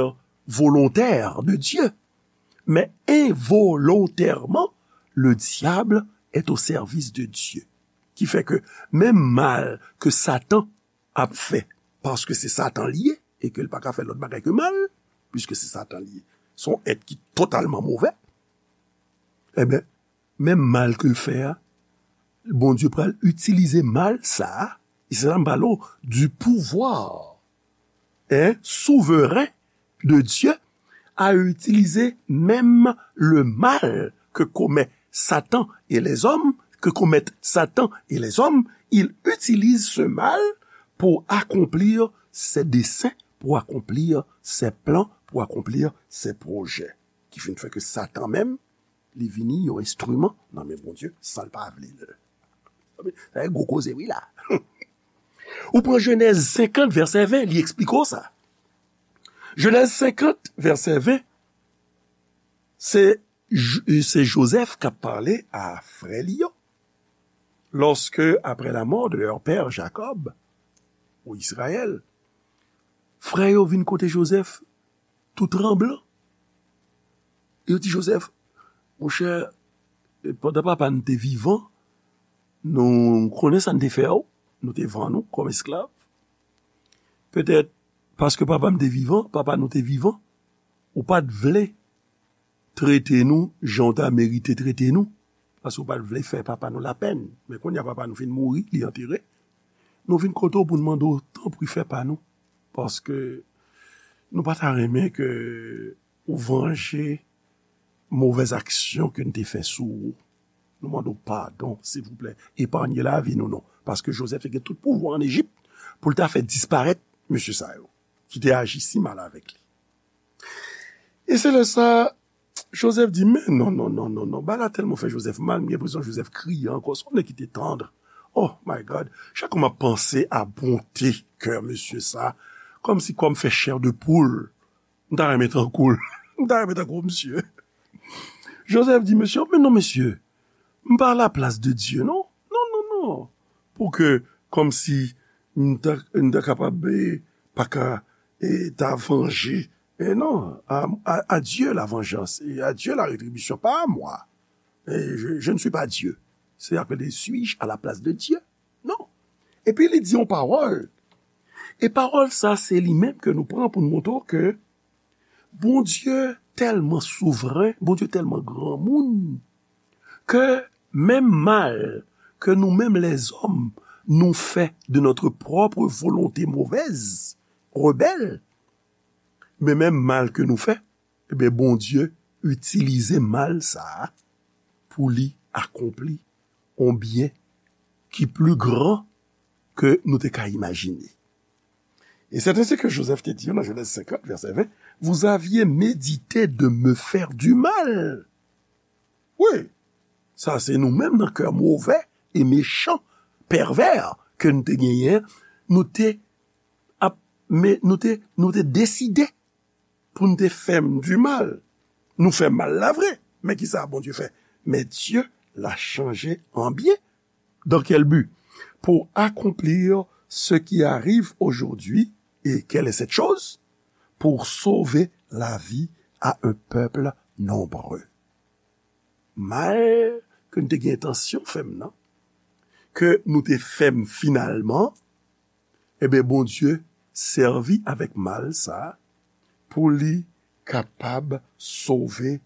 volontè de Dye, men envolontèman, le diable est au service de Dieu. Ki fè ke menm mal ke Satan ap fè, paske se Satan li ye, e ke l pa ka fè lòt bagay ke mal, piske se Satan li ye. Se yon èt ki totalman movè. Ebyen, menm mal ke l fè a, Bondye pral itilize mal sa a, e se la m pale w du pouvoir, hein, souveren de Dieu, a itilize menm le mal ke komèt Satan e lèzòm, ke komèt Satan e lèzòm, il utilise ce mal pour accomplir ses desseins, pour accomplir ses plans, pour accomplir ses projets. Ki fin fè ke Satan menm, li vini yon enstriman nan men Bondye, san l pa vle l. Sa se gwo koze, wi, la. Ou pran Jenèz senkant, vèsè ven, li eksplike w sa. Jenèz senkant, vèsè ven, se, J- se Jozèf k ap pale a frè li yo. Lorsque, après la mort de leur père Jacob, ou Israël, frè yo vin kote Jozèf, tou tranblan. Yo di Jozèf, monchè, pandan papa n te vivan, nou konnen sa n te fè w, nou te vann ou kòm esklav. Petèt, paske papa m te vivan, papa nou te vivan, ou pa t vle trete nou jan w ta merite trete nou, paske w pa t vle fè papa nou lapèn. Men kounye a papa nou fin mouri, li antere. Nou vin kote w pou n mande w, tanpri fè pa nou, paske nou pa ta renmen ke ou vanje movèz aksyon ke n te fè sou ou. Nou mande w padon, silvouplè, epanye lavi nou non, paske Jozèf te gen tout pouvwa ann Ejip pou l ta fè disparèt mesye sa yo, ki te aji si mal avèk li. E se lè sa, Jozèf di, men non, non, non, non, non, bagay la tèlman fè Jozèf mal, m gen enpresyon Jozèf kriye ankò, se yon nèg ki te tann. Oh my God, chak fwa m ap panse a bonte kè mesye sa, kòmsi kò m fè chè de poul, m ta renmen tankou l, m ta renmen tankou misye. Jozèf di, mesye, men non, mesye, m pa laplas de Dye, non. Non, non, non. Pou ke, kòmsi, m ta, m ta kapab, eh, pa ka, eh, ta vanje. Eh non, à, à, à Dieu la vengeance et à Dieu la rétribution, pas à moi. Eh, je, je ne suis pas Dieu. C'est appelé, suis-je à la place de Dieu? Non. Epi li di yon pawòl. E pawòl sa, se li menm ke nou pran pou n montre w ke Bondye tèlman souvren, Bondye tèlman granmoun, ke menm mal ke nou menm lèzòm nou fè de notre propre volonté mauvaise, rebelle, men menm mal ke nou fè, ebyen, Bondye itilize mal sa a pou li akonpli yon byen ki pli gran ke nou te ka imajine. Et c'est ainsi que Joseph te di nan Jenèz senkant, vèsè ven, vous aviez médité de me faire du mal. Wi, sa se nou menm nan kè movè e mechan, pèvè ke n te genyen, nou te ap, men nou te, nou te deside pou n te fè m di mal. Nou fè mal la vre, men ki sa Bondye fè? Mais Dieu l'a changé en bien. Dans quel but? Pour accomplir ce qui arrive aujourd'hui. Et quelle est cette chose? Pour sauver la vie à un peuple nombreux. Mal ke n te gen entansyon fè m nan, ke nou te fè m finalman, ebyen, Bondye sèvi avèk mal sa a pou li kapab sove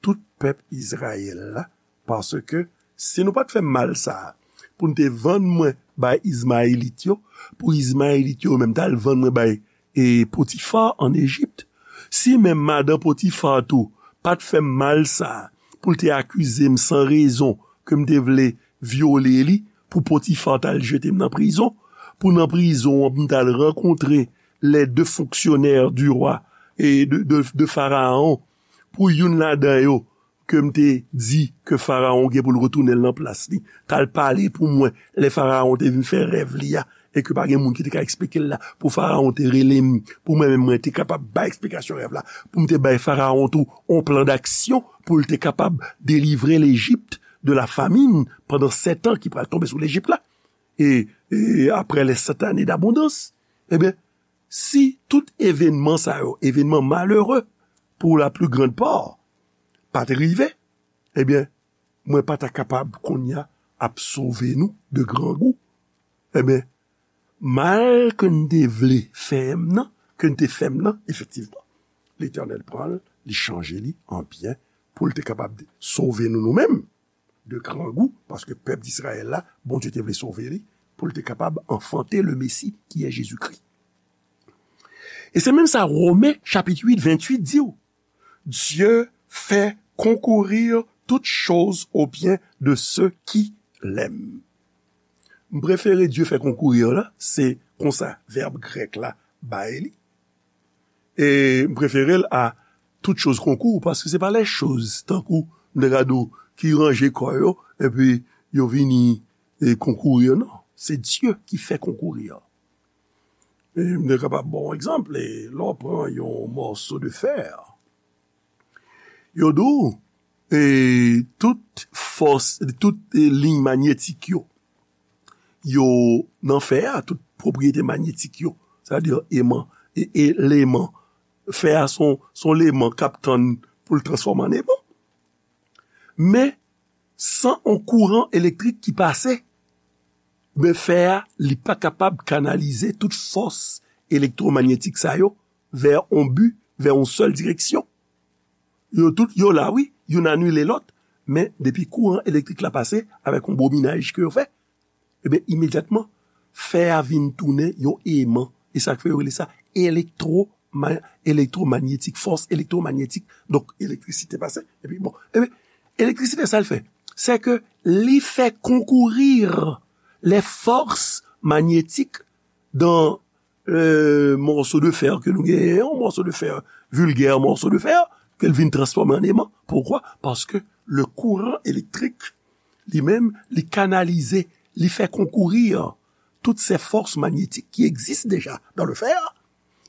tout pèp Izrayèl la, paske si nou pa t fè m mal sa a, pou n te vann mwen bay Izmayelit yo, pou Izmayelit yo menm t al vann mwen bay e Potifa ann Ejip. Si menm madan Potifa tou pa t fè m mal sa a, pou l te akize m san rezon ke m te vle vyole li, pou Potifa t al jete m nan prizon, pou nan prizon an pou m t al rankontre les deux fonctionnaires du roi e de, de, de Farawon, pou youn ladan yo ke m te di ke Farawon gen pou l retounen l nan plas li, t al pale pou mwen lè Farawon te vin fè rèv li a, e ke pa gen moun ki te ka eksplike l la, pou Farawon te rele m, pou mwen menm mwen te kapab bay eksplikasyon rèv la, pou m te bay Farawon tou on plan d'action pou l te kapab delivre Lejip de la famine pandan sèt an ki pral tonbe sou Lejip la, e, e après les sept années d'abondance. Ebyen, si tout evènman sa yo, evènman malere pou la plus grande part, pa te rive, ebyen, mwen pa ta kapab kounye a ap sove nou de grangou. Ebyen, mal ke n te vle fè m nan, ke n te fè m nan, efektivman, Letènèl pran l, li chanje li an byen pou l te kapab sove nou nou menm de grangou, paske pèp Dizrayèl la, Bondye te vle sove li, pou l te kapab anfante le Mesi ki è Jezikri. E se menm sa Women chapit uit, venntuit di w, Dieu fait concourir toutes choses au bien de ceux qui l'aiment. M prefere Dieu fait concourir la, se konsa vèb grèk la bay li. E m prefere l a toutes choses concourent, paske se pa les choses, tankou m te ka di w, ki ranje kò yo, epi yo vini e konkourir, non. Se Dieu qui fait concourir. E m te kapab ba w egzanp, e lè w pran yon mòso de fè, yo di w, e tout fòs, tout e liy manyetik yo, yo nan fè a, tout pwopriyete manyetik yo, sa vle di eman, e, eleman, fè a son, son eleman k ap tann pou l transfòme an eman. Men, san on kouran elektrik ki pase, men fè a, li pa kapab kanalize tout fòs elektwomanyetik sa yo vè on bi, vè on sèl direksyon. Yo tout, yo la, wi, youn anile lòt, men depi kouran elektrik la pase avèk on bominaj ke yo fè, ebyen, imedyatman, fè a vin tounen yon eman. E sa k fè yo rele sa elektwo-, elektwomanyetik, fòs elektwomanyetik. Donk, elektrisite pase, epi bon. Ebyen, elektrisite, sa l fè? Se ke li fè konkourir les forces magnétiques dans euh, morceau de fer ke nou genyen, yon morceau de fer, vulgaire morceau de fer, ke l vin transfòme an eman. Poukwa? Paske le kouran elektrik, li menm, li kanalize, li fè konkourir toutes ces forces magnétiques qui existent déjà dans le fer,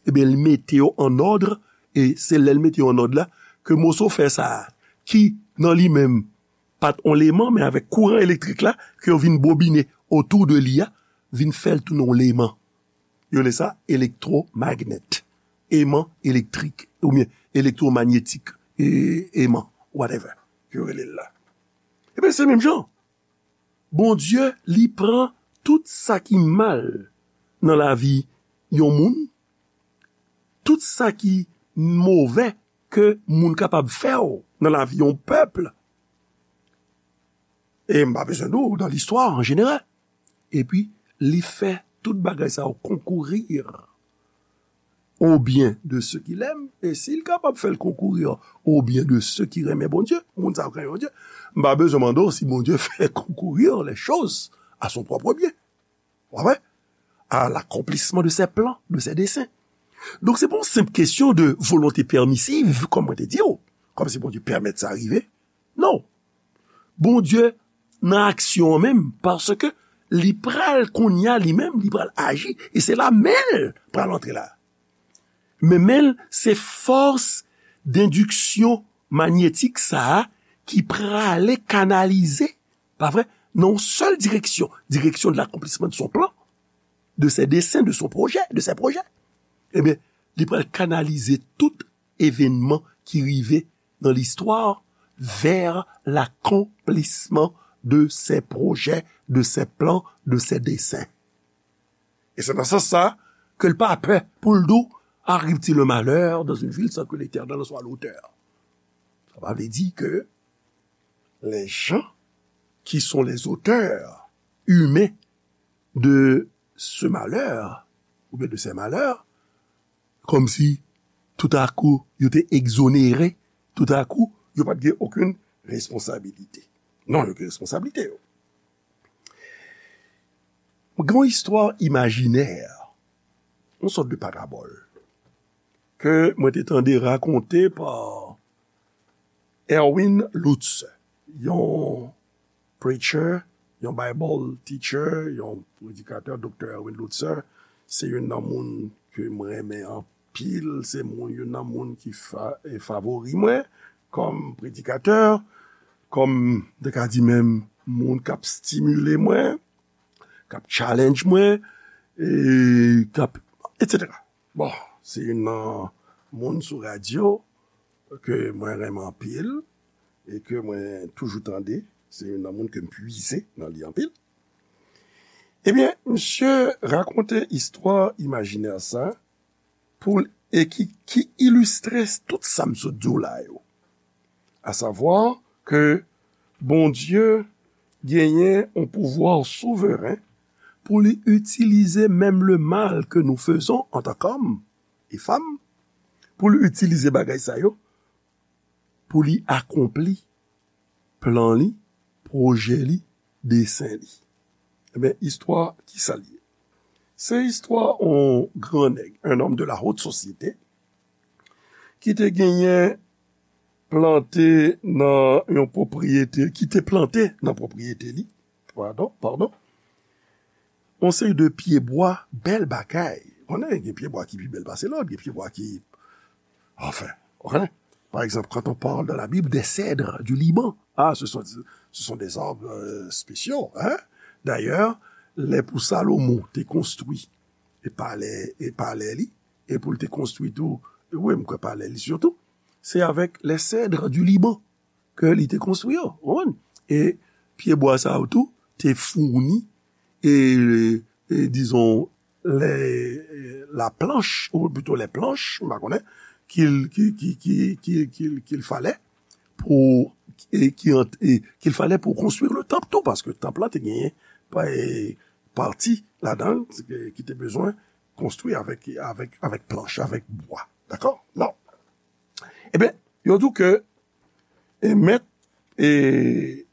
ebyen, li mete yo an òd, e se lè l mete yo an òd la, ke moso fè sa a, ki nan li menm, pa t on leman, men avèk kouran elektrik la, ke yo vin bobine otou de li a, vin fè l tounen on leman. Yo rele sa elektwomagnèt. Eman elektrik, oubyen elektwomanyetik, e, eman, whatever, yo rele l la. Ebyen, se menm jan. Bondye, li pran tout sa ki mal nan lavi yon moun, tout sa ki movè ke moun kapab fè w nan lavi yon pèp, e m pa bezwen di w, dans l'histoire en général. Epi, li fè tout bagay sa yo konkourir au bien de ceux qui l'aiment, e si l kapab fè l konkourir au bien de ceux qui renmen Bondye, moun sa yo k renmen Bondye, m pa bezwen mande w si Bondye fè konkourir les choses à son propre bien. Ou konprann? À l'accomplissement de ses plans, de ses desseins. Donk, se pa yon senp kesyon de volonte pèmisiv, kòm mwen te di w, kòm si Bondye pèmèt sa rive. Non. Bondye nan aksyon an menm, paske li pral kounye a li menm, li pral aji, e se la men l pral antre la. Men men l, se fòs dendiksyon manyetik sa a ki prale kanalize, pa vre, nan yon sèl direksyon, direction de l'accomplissement de son plan, de ses desseins, de son projet, de ses projets. Ebyen, li pral kanalize tout evènman ki rive nan listwa vers l'accomplissement de ses projets, de ses plans, de ses desseins. E se nan sans sa ke l pa pè pou l di w, arrive-t-il le malheur dans une ville sans que l'Éternel en soit l'auteur? Sa pa vle di ke les gens qui sont les auteurs humains de ce malheur, oubyen de ces malheurs, kòmsi toutakou yo te egzonere, toutakou yo pa t gen okenn responsabilite. Non, yo gen responsabilite yo. Gen yon istwa imajinè, yon sòt de parabòl, ke mwen te tande rakonte pa Erwin Lutzer, yon preacher, yon Bible teacher, yon predikatè, Doktè Erwin Lutzer. Se youn nan moun ke mwen renmen anpil, se moun, youn nan moun ki fa, e favori mwen kòm predikatè, kòm, m te ka di menm, moun k ap stimile mwen, k ap challenge mwen, e k ap, et cetera. Bon, se youn nan moun sou radyo ke mwen renmen anpil e ke mwen toujou tande. Se youn nan moun ke m pwize nan li anpil. Ebyen, misye rakonte istwa imajinè sa pou l, e ki, ki ilistre tout sa m sot di w la yo. Asavwa ke Bondye genyen yon pouvwa souveren pou li itilize menm le mal ke nou fezon antan kòm e fanm, pou li itilize bagay sa yo pou li akonpli plan li, pwojè li, desen li. Ebyen, istwa, kisa l ye? Se istwa yon gran nèg, un homme de la haute société, ki te genyen plante nan yon pwopriyete, ki te plante nan pwopriyete li, padon, padon, yon seri de pyebwa, bèl bagay. Konnen gen pyebwa ki pi bèl pase lòt, gen pyebwa ki, enfin, ou konnen. Par exemple, quand on parle dans la Bible des cèdres du Liban, ah, ce sont, ce sont des arbres, euh, spéciaux, hein? D'ailleurs, lè pou Salomon te konstwi e palè, e palè li, e pou l te konstwi tou, wi, m kwè palè li sitou, se avèk les cèdres du Liban ke li te konstwi yo, ou konprann? E pyebwa sa yo tou te founi, e, e dizon, lè, la planch, ou plito lè planch, m pa konnen, ki l, ki, ki, ki, ki, ki, ki l falè pou, e, ki ant-, e, ki l falè pou konstwi le tanp tou, paske tanp lan te genyen pa, e, pati ladan l ki, ki te bezwen konstwi avèk, avèk, avèk planch, avèk bwa. Dakò? Non. Ebyen, yo di w ke, e, mèt, e,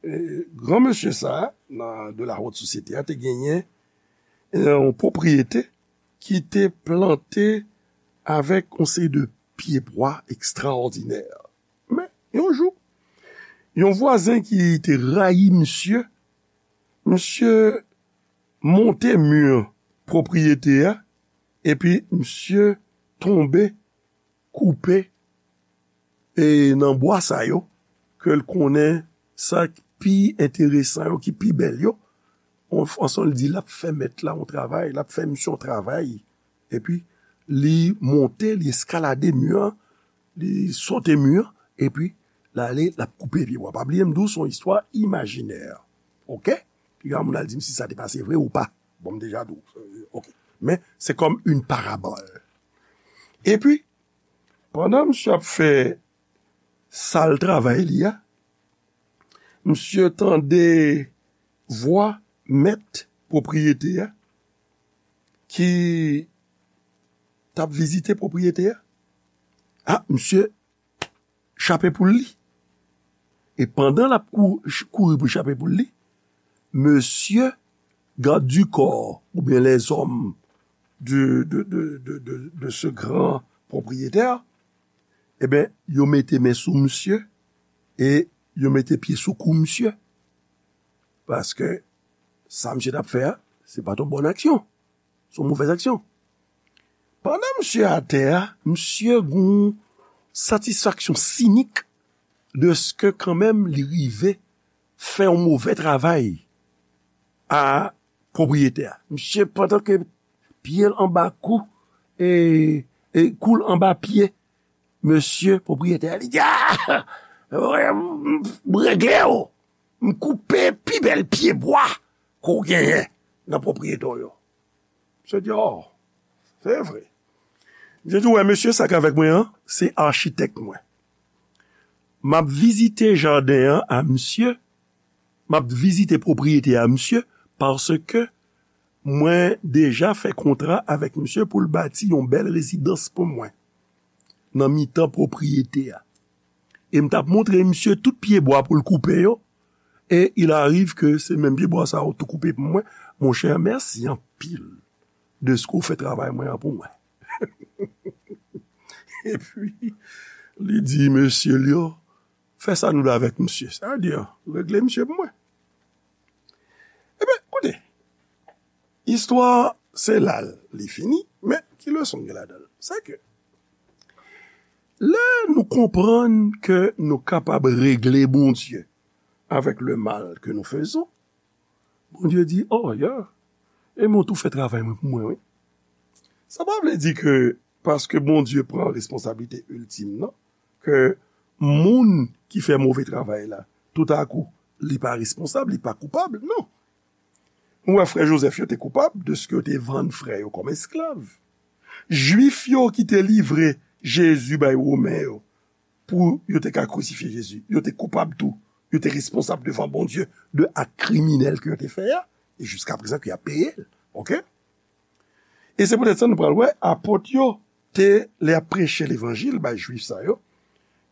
e, gran mesye sa a, nan, de la haute société a, te genyen, e, yon pwopriyete ki te plante avèk yon seri de pyebwa ekstraòdinè. Men, yon jou, yon vwazen ki te rayi misye, misye monte mi pwopriyete a, epi misye tonbe, koupe, e nan bwa sa yo, ke l konnen sa k pi enteresan yo, ki pi bèl yo, an, ansanm li di l ap fè mèt la yon travay, l ap fè misye yon travay, epi li monte, li eskalade mi an, li sote mi an, epi l ale, l ap koupe pye bwa. Pa bliye m di w, se yon istwa imajinè. Oke? Piga moun al di m si sa te pase vre ou pa. Bon, m deja di w. Oke. Men, se kòm yon parabòl. Epi, pandan misye ap fè sal travay li a, misye tande vwa mèt pwopriyete a ki t ap vizite pwopriyete a. A, misye chape pou l li. E pandan l ap kou-, ch-, kouri pou l chape pou l li, mesye gad di kò, oubyen lèzòm de, de, de, de, de, de ce grand propriétaire, ebyen, yo mete men sou misye e yo mete pye sou kou misye. Paske sa misye t ap fè a, se pa t yon bòn aksyon. Se yon movèz aksyon. Pandan misye atè a, misye gen yon satisfaksyon sinik dèske kanmenm li rive fè yon movè travay a pwopriyetè a. Misye, pandan ke pye l anba kou, e, e kou l anba pye mesye pwopriyetè a, li di, "A! M regle w! M koupe pi bèl pye bwa ke w genyen nan pwopriyete w yo." Misye di, "O, se vre." Misye di, "Ou wè mesye sa k avèk mwen an, se achitèk mwen. M ap vizite jaden an a misye, m ap vizite pwopriyete a misye, paske mwen deja fè kontra avèk misye pou l bati yon bèl rezidans pou mwen nan mitan pwopriyete a. E m t ap montre misye tout pyebwa pou l koupe yo, e il arrive ke se menm pyebwa sa yo tou koupe pou mwen. Monchè, mèsi anpil de ske w fè travay mwen an pou mwen. Epi, li di mesye l yo, fè sa nou vle avèk misye. Sa vle di, regle misye pou mwen. Ebyen, koute, istwa se la l li fini, men ki leson gen ladan l? Se ke lè nou konprann ke nou kapab regle Bondye avèk le mal ke nou fezon, Bondye di, oh, yeah, e mwen tou fè travay mwen pou mwen, wi. Sa pa vle di ke paske Bondye pran responsablite iltim nan, ke moun ki fè move travay la, toutakou, li pa responsab, li pa koupab, non. Nou wè frè Jozèf yo te koupab de ske yo te vann frè yo kòm esklav. Jwif yo ki te livre Jezi bay Women yo pou yo te ka krisifye Jezi, yo te koupab tou. Yo te responsab devan Bondye de ak kriminèl ke yo te fè a, e jiska prezan ke y ap peye l. Oke? E se poutèt sa nou pral wè apot yo te, lè y ap preche levanjil bay Jwif sa yo,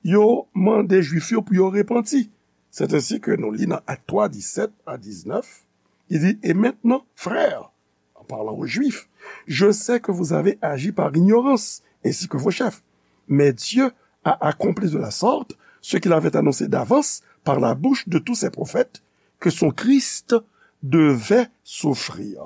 yo mande Jwif yo pou yo repanti. Sèt ensi ke nou li nan Ak twa, disèt a diznèf, li di, et maintenant, frères, en parlant aux Juifs, je sais que vous avez agi par ignorance, ainsi que vos chefs. Mais Dieu a accompli de la sorte ce qu'il avait annoncé d'avance par la bouche de tous ses prophètes, que son Christ devait souffrir.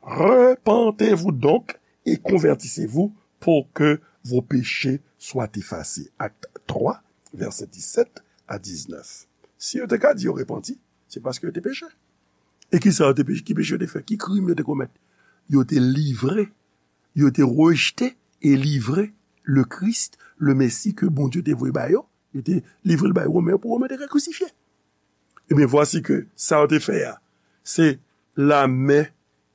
Repentez-vous donc et convertissez-vous pour que vos péchés soient effacés. Acte trois, verset dix-sept à dix-neuf. Si yo te ka di yo repanti, se paske yo te peche. E ki sa yo te peche? Ki peche yo te fè? Ki krim yo te komèt? Yo te livre, yo te rejte e livre le Christ, le Messie ke Bondye te voye ba yo. Yo te livre l bay Women yo pou Women te ka krisifye. Ebyen, vwasi ke sa yo te fè a, se la main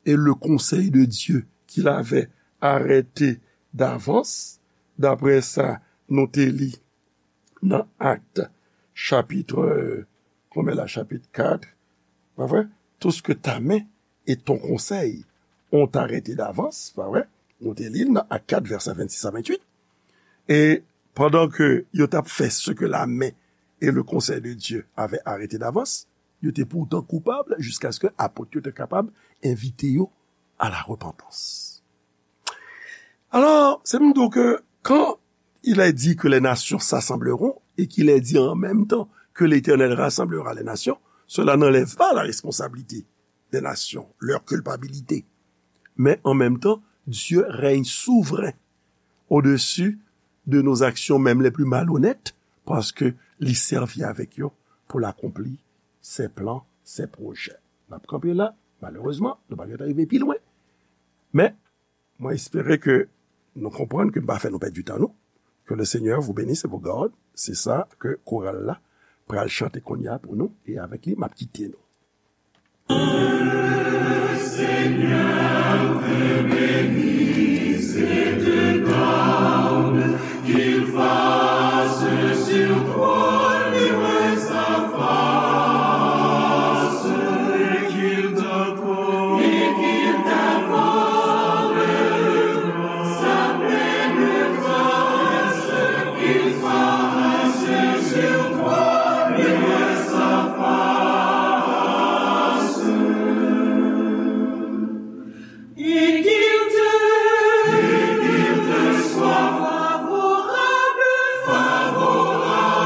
et le conseil de Dieu qu'il avait arrêté d'avance, daprè sa nou te li nan Acte, chapitre, euh, konbyen la, chapitre quatre, pa vre? Tout ce que ta main et ton conseil ont arrêté d'avance, pa vre? Nou te li l nan Acte quatre, verset vingt-six à vingt-huit. E pandan ke yo t ap fè ce que la main et le conseil de Dieu avaient arrêté d'avance, yo te poutan koupab jiskaske apot yo te kapab envite yo à la repentance. Alors, c'est donc que quand il est dit que les nations s'assembleront et qu'il est dit en même temps que l'Éternel rassemblera les nations, cela n'enlève pas la responsabilité des nations, leur culpabilité. Mais en même temps, Dieu règne souverain au-dessus de nos actions, même les plus malhonnêtes, paske li sèvi avèk yo pou l akonpli ses plans, ses projets. N ap kanpe la, malerezman, nou pa gentan rive pi lwen. Men, mwen espere ke nou konprann ke m pa fè nou pèdi tan nou. Que le Seigneur vous bénisse et vous garde. Se sa ke koral la pral chante kounye a pou nou, e avèk li, m ap kite nou. Seigneur te bénisse et te garde, qu'il fasse sur toi luire sa face, et qu'il t'accorde, et qu'il t'accorde sa pleine grâce, qu'il fasse sur toi luire sa face. Et qu'il te, et qu'il te soit favorable, favorable.